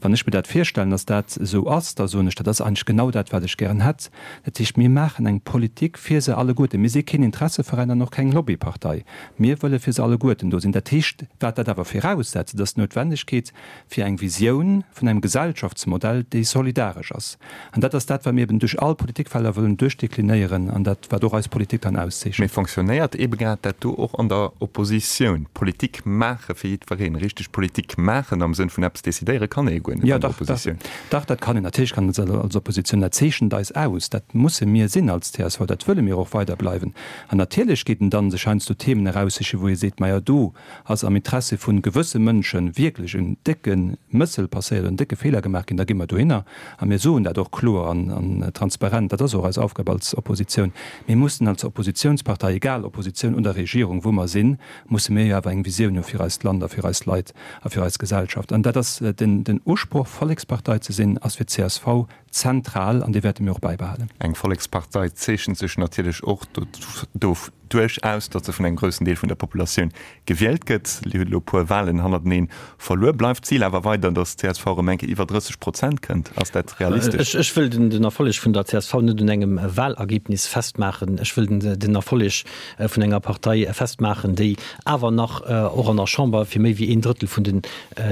Wann ech mir dat virstellen, dass dat esou ass, da soen ech, dat ass eigentlech genau dat, wat ech gären hätt. Dat heescht, mir maachen eng Politik fir se alleguerten. Mir si keen Interesseveräin an och keng Lobbypartei. Mir wëlle fir se alleguerten do sinn. Dat heescht, wat dat awer viraussetzt, dat ass d'Noutwendegkeet fir eng Visioun vun engem Gesellschaftsmodell, déi solidaresch ass. An dat ass dat, wat mir eben duerch all Politikfelder wëllen duerchdeklinéieren an dat, wat och eis Politik dann auszeechent. Mee fonctionnéiert ebe grad dat do och an der Oppositioun? Politik maache fir jiddwereen, richteg Politik maachen am Sënn vun eppes decidéiere kann ee jo guer net an der Oppositioun. Dach, dat kann een. Natierlech kann een dat als Oppositioun. Dat zeechent eis aus. Dat musse mir sinn als csv. Dat wëlle mir och weider bleiwen. An natierlech geet en dann sech heiansdo Themen eraussichen, wou ee seet, Majo, do ass am Interesse vu gewësse Mënsche wierklech en décke Mëssel passéiert oder en décke Feeler gemaach ginn. Da gi mer dohinner a mir soen dat och kloer an transparent. Dat ass och eis Aufgab als Oppositioun. Mir mussen als Oppositionspartei, egal Oppositioun oder Regierung, wou mer sinn, musse mir jo awer eng Visioun hu fir eist Land a fir eis Leit a fir eis Gesellschaft. An dat ass den Usproch, Vollekspartei ze sinn, ass fir d'CSV zentral an dee wäerte mir och bäibehalen. Eng Vollekspartei zeechent sech natierlech och. duerchaus, datt se vun engem groussen Deel vun der Populatioun gewielt gëtt. Dir hutt elo e puer Walen hannerteneen verluer. Bleift d'Zil awer weider, datt d'CSV erëm eng Kéier iwwer 30 Prozent kënnt? Ass dat realistesch? Ech wëll den Erfolleg vun der csv net un engem Walergebnis festmaachen. Ech wëll den Erfolleg vun enger Partei festmaachen, déi awer nach och an der Chamber fir méi wéi een Drëttel vun den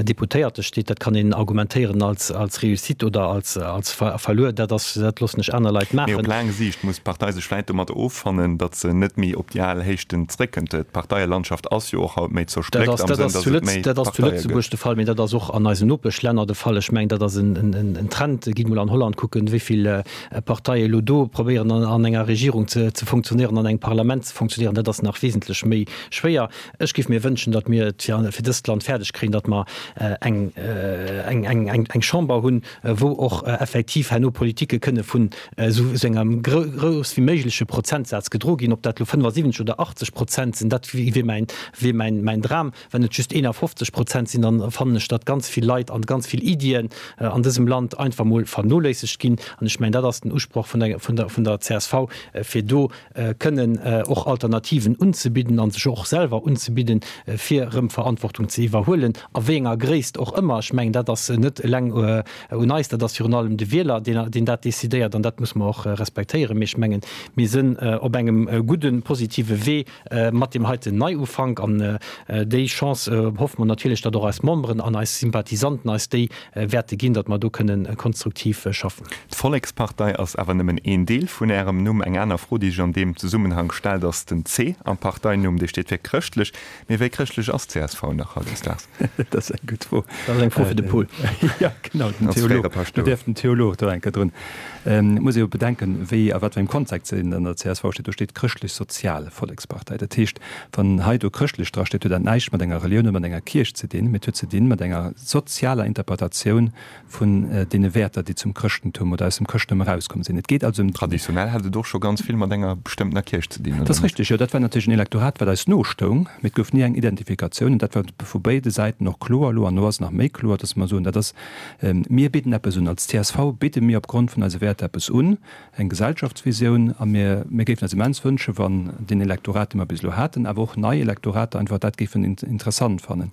Deputéierte steet. Dat kann een argumentéieren als Réussite oder als Verluer. Dat ass, dat loossen ech aner Leit maachen. Mee op laang Siicht muss d'Partei sech vläit domat offannen, datt se net méi op déi al Héichten zréckkënnt. D'Parteielandschaft ass jo och haut méi zerspléckt am Sënn, datt et méi Dat ass zu Lëtzebuerg de Fall, mee dat ass och an eisen Nopeschlänner de Fall. Ech mengen, dat ass en Trend. Gitt mol an Holland kucken, wéi vill Parteie elo do probéieren an enger Regierung ze funktionéieren, an engem Parlament ze funktionéieren. Dat ass nach wesentlech méi schwéier. Ech géif mir wënschen, datt mir et fir dëst Land fäerdeg kréien, datt mer eng eng Chamber hunn, wou och effektiv herno Politike kënne vun esou engem grouss wéi méigleche Prozentsaz gedro ginn. Ob dat elo 75 oder 80 Prozent sinn, dat wier mäin wier mäin mäin Dram. Wann et just 51 Prozent sinn, dann fannen ech, datt ganz vill Leit an ganz vill Iddien an dësem Land einfach mol vernoléissegt ginn. An ech mengen, dat ass den Usproch vun der vun der vun der csv, fir do kënnen och Alternativen unzebidden a sech och selwer unzebidden, fir erëm Verantwortung ze iwwerhuelen, a wéi enger Gréisst och ëmmer. Ech mengen, dat ass net eleng un eis, dat ass virun allem de Wieler, deen dat decidéiert, an dat muss mer och respektéieren. Mee ech mengen, mir sinn op engem gudden, positive Wee mat deem heiten Neiufank, an déi Chance hoffe mer natierlech, datt och eis Memberen an eis Sympathisanten eis déi wäerte ginn, datt mer do kënnen konstruktiv schaffen. D'Vollekspartei ass awer nëmmen een Deel vun Ärem Numm. Eng aner Fro, déi sech an deem Zesummenhang stellt, ass den C am Parteinumm. Dee steet fir chrëschtlech. Mee wéi chrëschtlech ass d'CSV nach hautdesdaags? Dat ass eng gutt Fro. Dat ass eng Fro fir de Paul. Jo, genau, den Theolog. Do däerf den Theolog do eng Kéier drun. Et muss ee jo bedenken, wéi a wat fir engem Kontext se an der csv steet. Do steet Chrëschtlech-Sozial Vollekspartei. Dat heescht, wann hei do chrëschtlech drasteet, huet dat näischt mat enger Relioun oder mat enger Kierch ze dinn, mee et huet ze dinn mat enger sozialer Interpretatioun vun deene Wäerter, déi zum Chrëschtentum oder aus dem Chrëschtentum erauskomm sinn. Et geet also ëm. Traditionell hat et och scho ganz vill mat enger bestëmmtener Kierch ze dinn, oder net? Dat ass richteg, jo. Dat war natierlech en Elektorat, wat eis nostoung, mee et gouf ni eng Identifikatioun. An dat war vu béide Säiten och kloer elo. An elo ass et nach méi kloer, dass mer soen, dat ass, mir bidden eppes un. Als csv bidde mir opgrond vun eise Wäerter eppes un. eng Gesellschaftsvisioun a mir, mir géifen eis immens wënschen, wann deen Elektorat, dee mer bis elo haten, awer och nei Elektorater einfach dat géifen interessant fannen.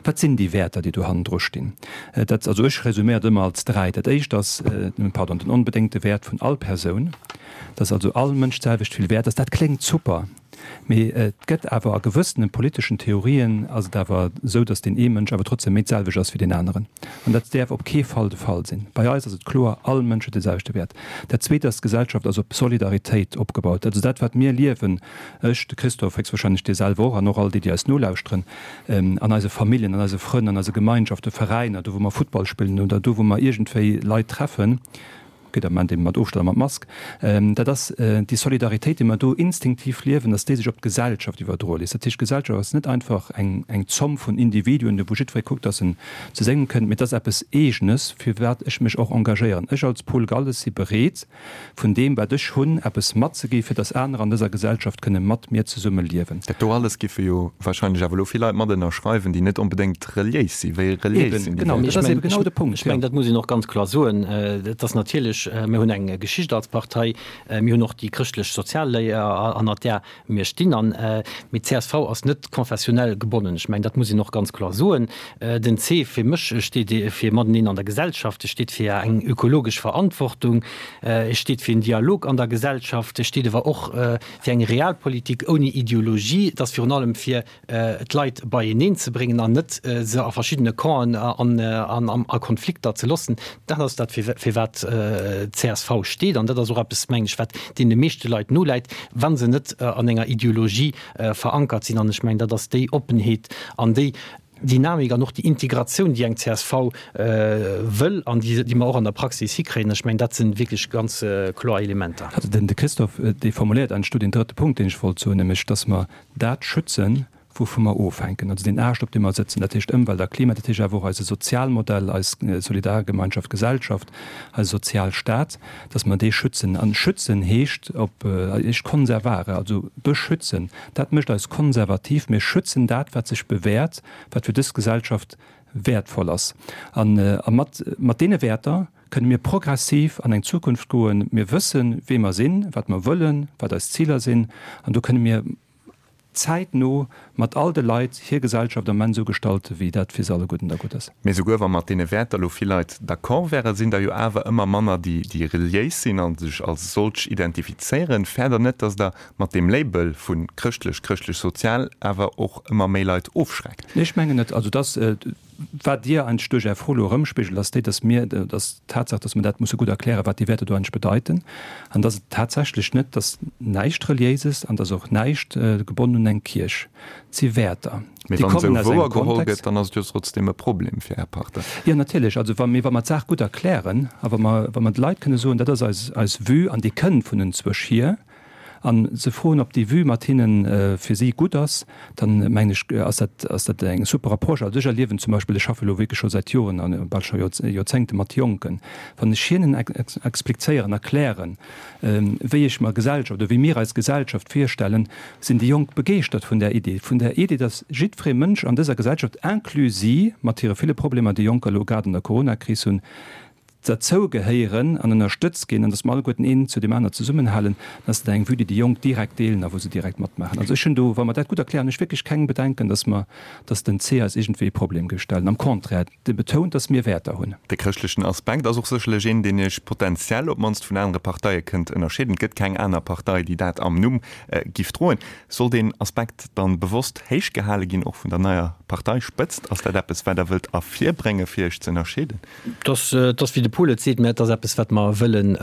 Wat sinn déi Wäerter, déi do hannendru stinn? Dat, also ech resuméiert ëmmer als dräi. Dat éischt ass, pardon, den onbedéngte Wäert vun all Persoun, dass also all Mënsch d'selwecht vill wäert ass. Dat kléngt super. Mee et gëtt awer a gewëssene politeschen Theorien ass et awer esou, datt deen ee Mënsch awer trotzdem méi d'selwecht ass wéi deen aneren. An dat däerf op kee Fall de Fall sinn. Bei eis ass et kloer, all Mënsch huet de selwechte Wäert. Dat Zweet ass, d'Gesellschaft ass op Solidaritéit opgebaut. Also dat, wat mir liewen, ech, de Christophe, héchstwahrscheinlech dir selwer och an och all déi, déi eis nolauschteren, an eise Familljen, an eise Frënn, an eise Gemeinschaften, Veräiner, do wou mer Futtball spillen oder do wou mer iergendwéi Leit treffen, Gëtt am Moment eben mat Ofstand a mat Mask. Dat ass déi Solidaritéit, déi mer do instinktiv liewen, dass déi sech op d'Gesellschaft iwwerdroe léisst. Dat heescht, d'Gesellschaft ass net einfach eng eng Zomm vun Individuen, wou jiddweree kuckt, dass en zu sengem kënnt, mee et ass eppes Eegenes, fir wat ech mech och engagéieren. Ech als Paul Galles si bereet, vun deem, wat ech hunn, eppes matzegi fir dass anerer an dëser Gesellschaft kënne mat mir zesumme liewen. Dat do alles giffe jo wahrscheinlech awer elo vill Leit mat ënnerschreiwen, déi net onbedéngt reliéis sinn. Wéi reliéis sinn déi Leit? Dat ass eben genau de Punkt. Ech mengen, dat muss een och ganz kloer soen. Et ass natierlech, mir hunn eng Geschicht als Partei, mir hunn och déi chrëschtlech-sozial Léier, hannert där mir stinn. An, mee d'CSV ass net konfessionell gebonnen. Ech mengen, dat muss een och ganz kloer soen. Den C fir mech steet fir mateneen an der Gesellschaft, e steet fir eng ökologesch Verantwortung, e steet fir en Dialog an der Gesellschaft, e steet awer och fir eng Realpolitik ouni Ideologie. Et ass virun allem fir d'Leit beieneen ze bréngen an net se a verschiddene Campen an a Konflikter ze loossen. Dat ass dat, fir wat d'CSV steet. An dat ass och eppes, mengen ech, wat deene meeschte Leit noläit, wa se net an enger Ideologie verankert sinn. An ech mengen, dat ass déi Oppenheet an déi Dynamik an och déi Integratioun, déi eng csv wëll an déi mer och an der Praxis hikréien. Ech mengen, dat si wierklech ganz kloer Elementer. Also den de Christophe, dee formuléiert eigentlech do deen drëtte Punkt, deen ech wollt soen, nämlech dass mer dat schützen, wouvu mer ofhänken, also deen Aascht, op deem mer sëtzen, dat heescht Ëmwelt a Klima, dat heescht awer och eise Sozialmodell, eis Solidargemeinschaft, Gesellschaft, eise Sozialstaat, dass mer dee schützen. An schützen heescht op heescht conservare, also beschützen. Dat mécht eis konservativ. Mir schützen dat, wat sech bewährt, wat fir dës Gesellschaft wäertvoll ass. An a mat mat deene Wäerter kënne mir progressiv an eng Zukunft goen. Mir wëssen, wee mer sinn, wat mer wëllen, wat eis Ziler sinn, an do kënne mir. zäitno mat all de Leit hir Gesellschaft am Enn esou gestalten, wéi dat fir se alleguerten da gutt ass. Mee souguer wa mat deene Wäerter elo vill Leit d'accord wären, sinn der jo awer ëmmer manner, déi déi reliéis sinn a sech als solch identifizéieren. Fäert Der net, datt Der mat deem Label vu chrëschtlech, chrëschtlech-sozial awer och ëmmer méi Leit ofschreckt? Nee, ech mengen net. Also dass, wat Dir eigentlech duerch Är Fro elo erëmspigelt, ass déi, dass mir, dass d'Tatsaach, dass mer dat musse gutt erklären, wat déi Wäerter do eigentlech bedeiten, an dass et tatsächlech net, dass näischt Reliéises an dass och näischt gebonnen un eng Kierch. Et si Wäerter, Mee déi wann kommen esou aus engem wouer geholl Kontext. gëtt, dann ass et jo trotzdem e Problem fir Är Partei. Jo, natierlech. Also wa, mee wa mer d'Saach gutt erklären a wa mer, wa mer de Leit kënne soen, dat ass eis, eis Vue an déi kënnt vun enzwousch hier, a se froen, ob déi Vue mat hinne fir si gutt ass, dann mengen ech, ass dat, ass dat eng super Approche. Also ech erliewen zum Beispill, ech schaffe elo wierklech scho säit Joren a bal scho Joerzéngte mat Jonken, wann ech hinnen explizéieren, erklären, wéi ech mer Gesellschaft oder wéi mir eis Gesellschaft virstellen, sinn déi Jonk begeeschtert vun där Idee, vun där Idee, dass jiddweree Mënsch an dëser Gesellschaft, inclus si mat hire ville Problemer, déi Jonker elo grad an der Coronakris hunn, derzou gehéieren an ënnerstëtzt ginn an dass mer alleguerten een zu deem aner zesummenhalen, dann ass dat eng Vue, déi déi Jonk direkt deelen a wou se direkt matmaachen. Also ech hunn do, wa mer dat gutt erklären, hunn ech wierklech keng Bedenken, dass mer, dass den C eis iergendwéi e Problem géif stellen. Am Contraire, dee betount, dass mir Wäerter hunn. De chrëschtlechen Aspekt ass och sécherlech een, deen Iech potenziell op d'mannst vun anere Parteie kënnt ënnerscheeden. Et gëtt keng aner Partei, déi dat am Numm giff droen. Soll deen Aspekt dann bewosst héich gehale ginn, och vun der neier Parteispëtzt? Ass dat eppes, wat Der wëllt ervirbréngen, fir Iech ze ënnerscheeden? Et ass, wéi de Paul et seet, mä et ass eppes, wat mer wëllen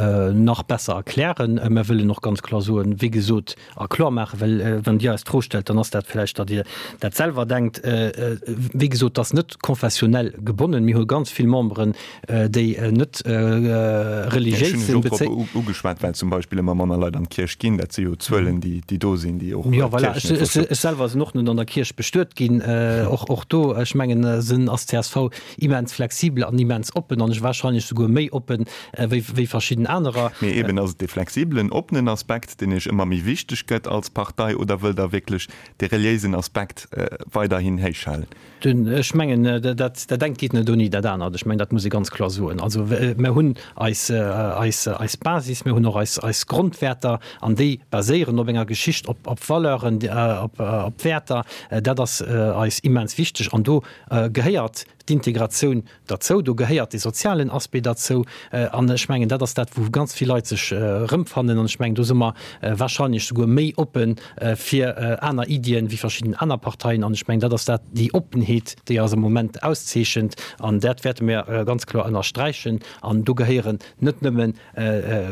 nach besser erklären. Mer wëllen och ganz kloer soen, wéi gesot, a kloer maachen, well wann Dir eis d'Fro stellt, dann ass dat vläicht, datt Dir dat selwer denkt. Wéi gesot, et ass net konfessionell gebonnen. Mir hu ganz vill Memberen, déi net religiéis sinn. Ech hunn lech och drop ugeschwat, well zum Beispill ëmmer manner Leit an d'Kierch ginn. Dat si jo Zuelen, déi do sinn, déi och Jo, voilà. Ech selwer sinn och net an der Kierch bestuet ginn. Och do, ech mengen, sinn ass csv immens flexibel an immens oppen an wahrscheinlech souguer méi oppen wéi wéi verschidden anerer. Mee eben, ass et dee flexibelen, oppenen Aspekt, deen Iech ëmmer méi wichteg gëtt als Partei, oder wëllt Der wierklech dee reliéisen Aspekt weiderhin héich halen? Ech mengen, dat dat engt geet net ouni dat anert. Ech mengen, dat muss ee ganz kloer soen. Also mer hunn eis eis eis Basis, mir hunn och eis eis Grondwäerter an déi baséieren op enger Geschicht, op op Valeuren, op op Wäerter. Dat ass eis immens wichteg an do gehéiert d'Integratioun derzou, do gehéiert de sozialen Aspect derzou. An ech mengen, dat ass dat, wou ganz vill Leit sech erëmfannen. An ech mengen, do si mer wahrscheinlech souguer méi oppe fir aner Iddien wéi verschidden aner Parteien. An ech mengen, dat ass dat, déi Oppenheet, déi eis am Moment auszeechent. An dat wäerte mir ganz kloer ënnersträichen. An do gehéieren net nëmmen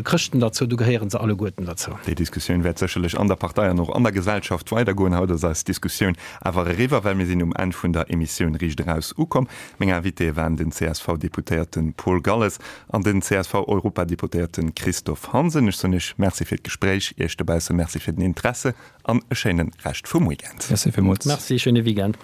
Chrëschten derzou, do gehéiere se alleguerten derzou. Déi Diskussioun wäert sécherlech an der Partei an och an der Gesellschaft weidergoen. Haut ass eis Diskussioun awer eriwwer, well mir sinn um Enn vun der Emissioun Riicht Eraus ukomm. Meng Invitéë waren den CSV-Deputéierte Paul Galles an den CSV-Europadeputéierte Christophe Hansen. Ech soen Iech Merci fir d'Gespréich, Iech dobausse Merci fir den Interesse an e schéine Rescht vum Weekend. Merci villmools. Merci, schéine Weekend.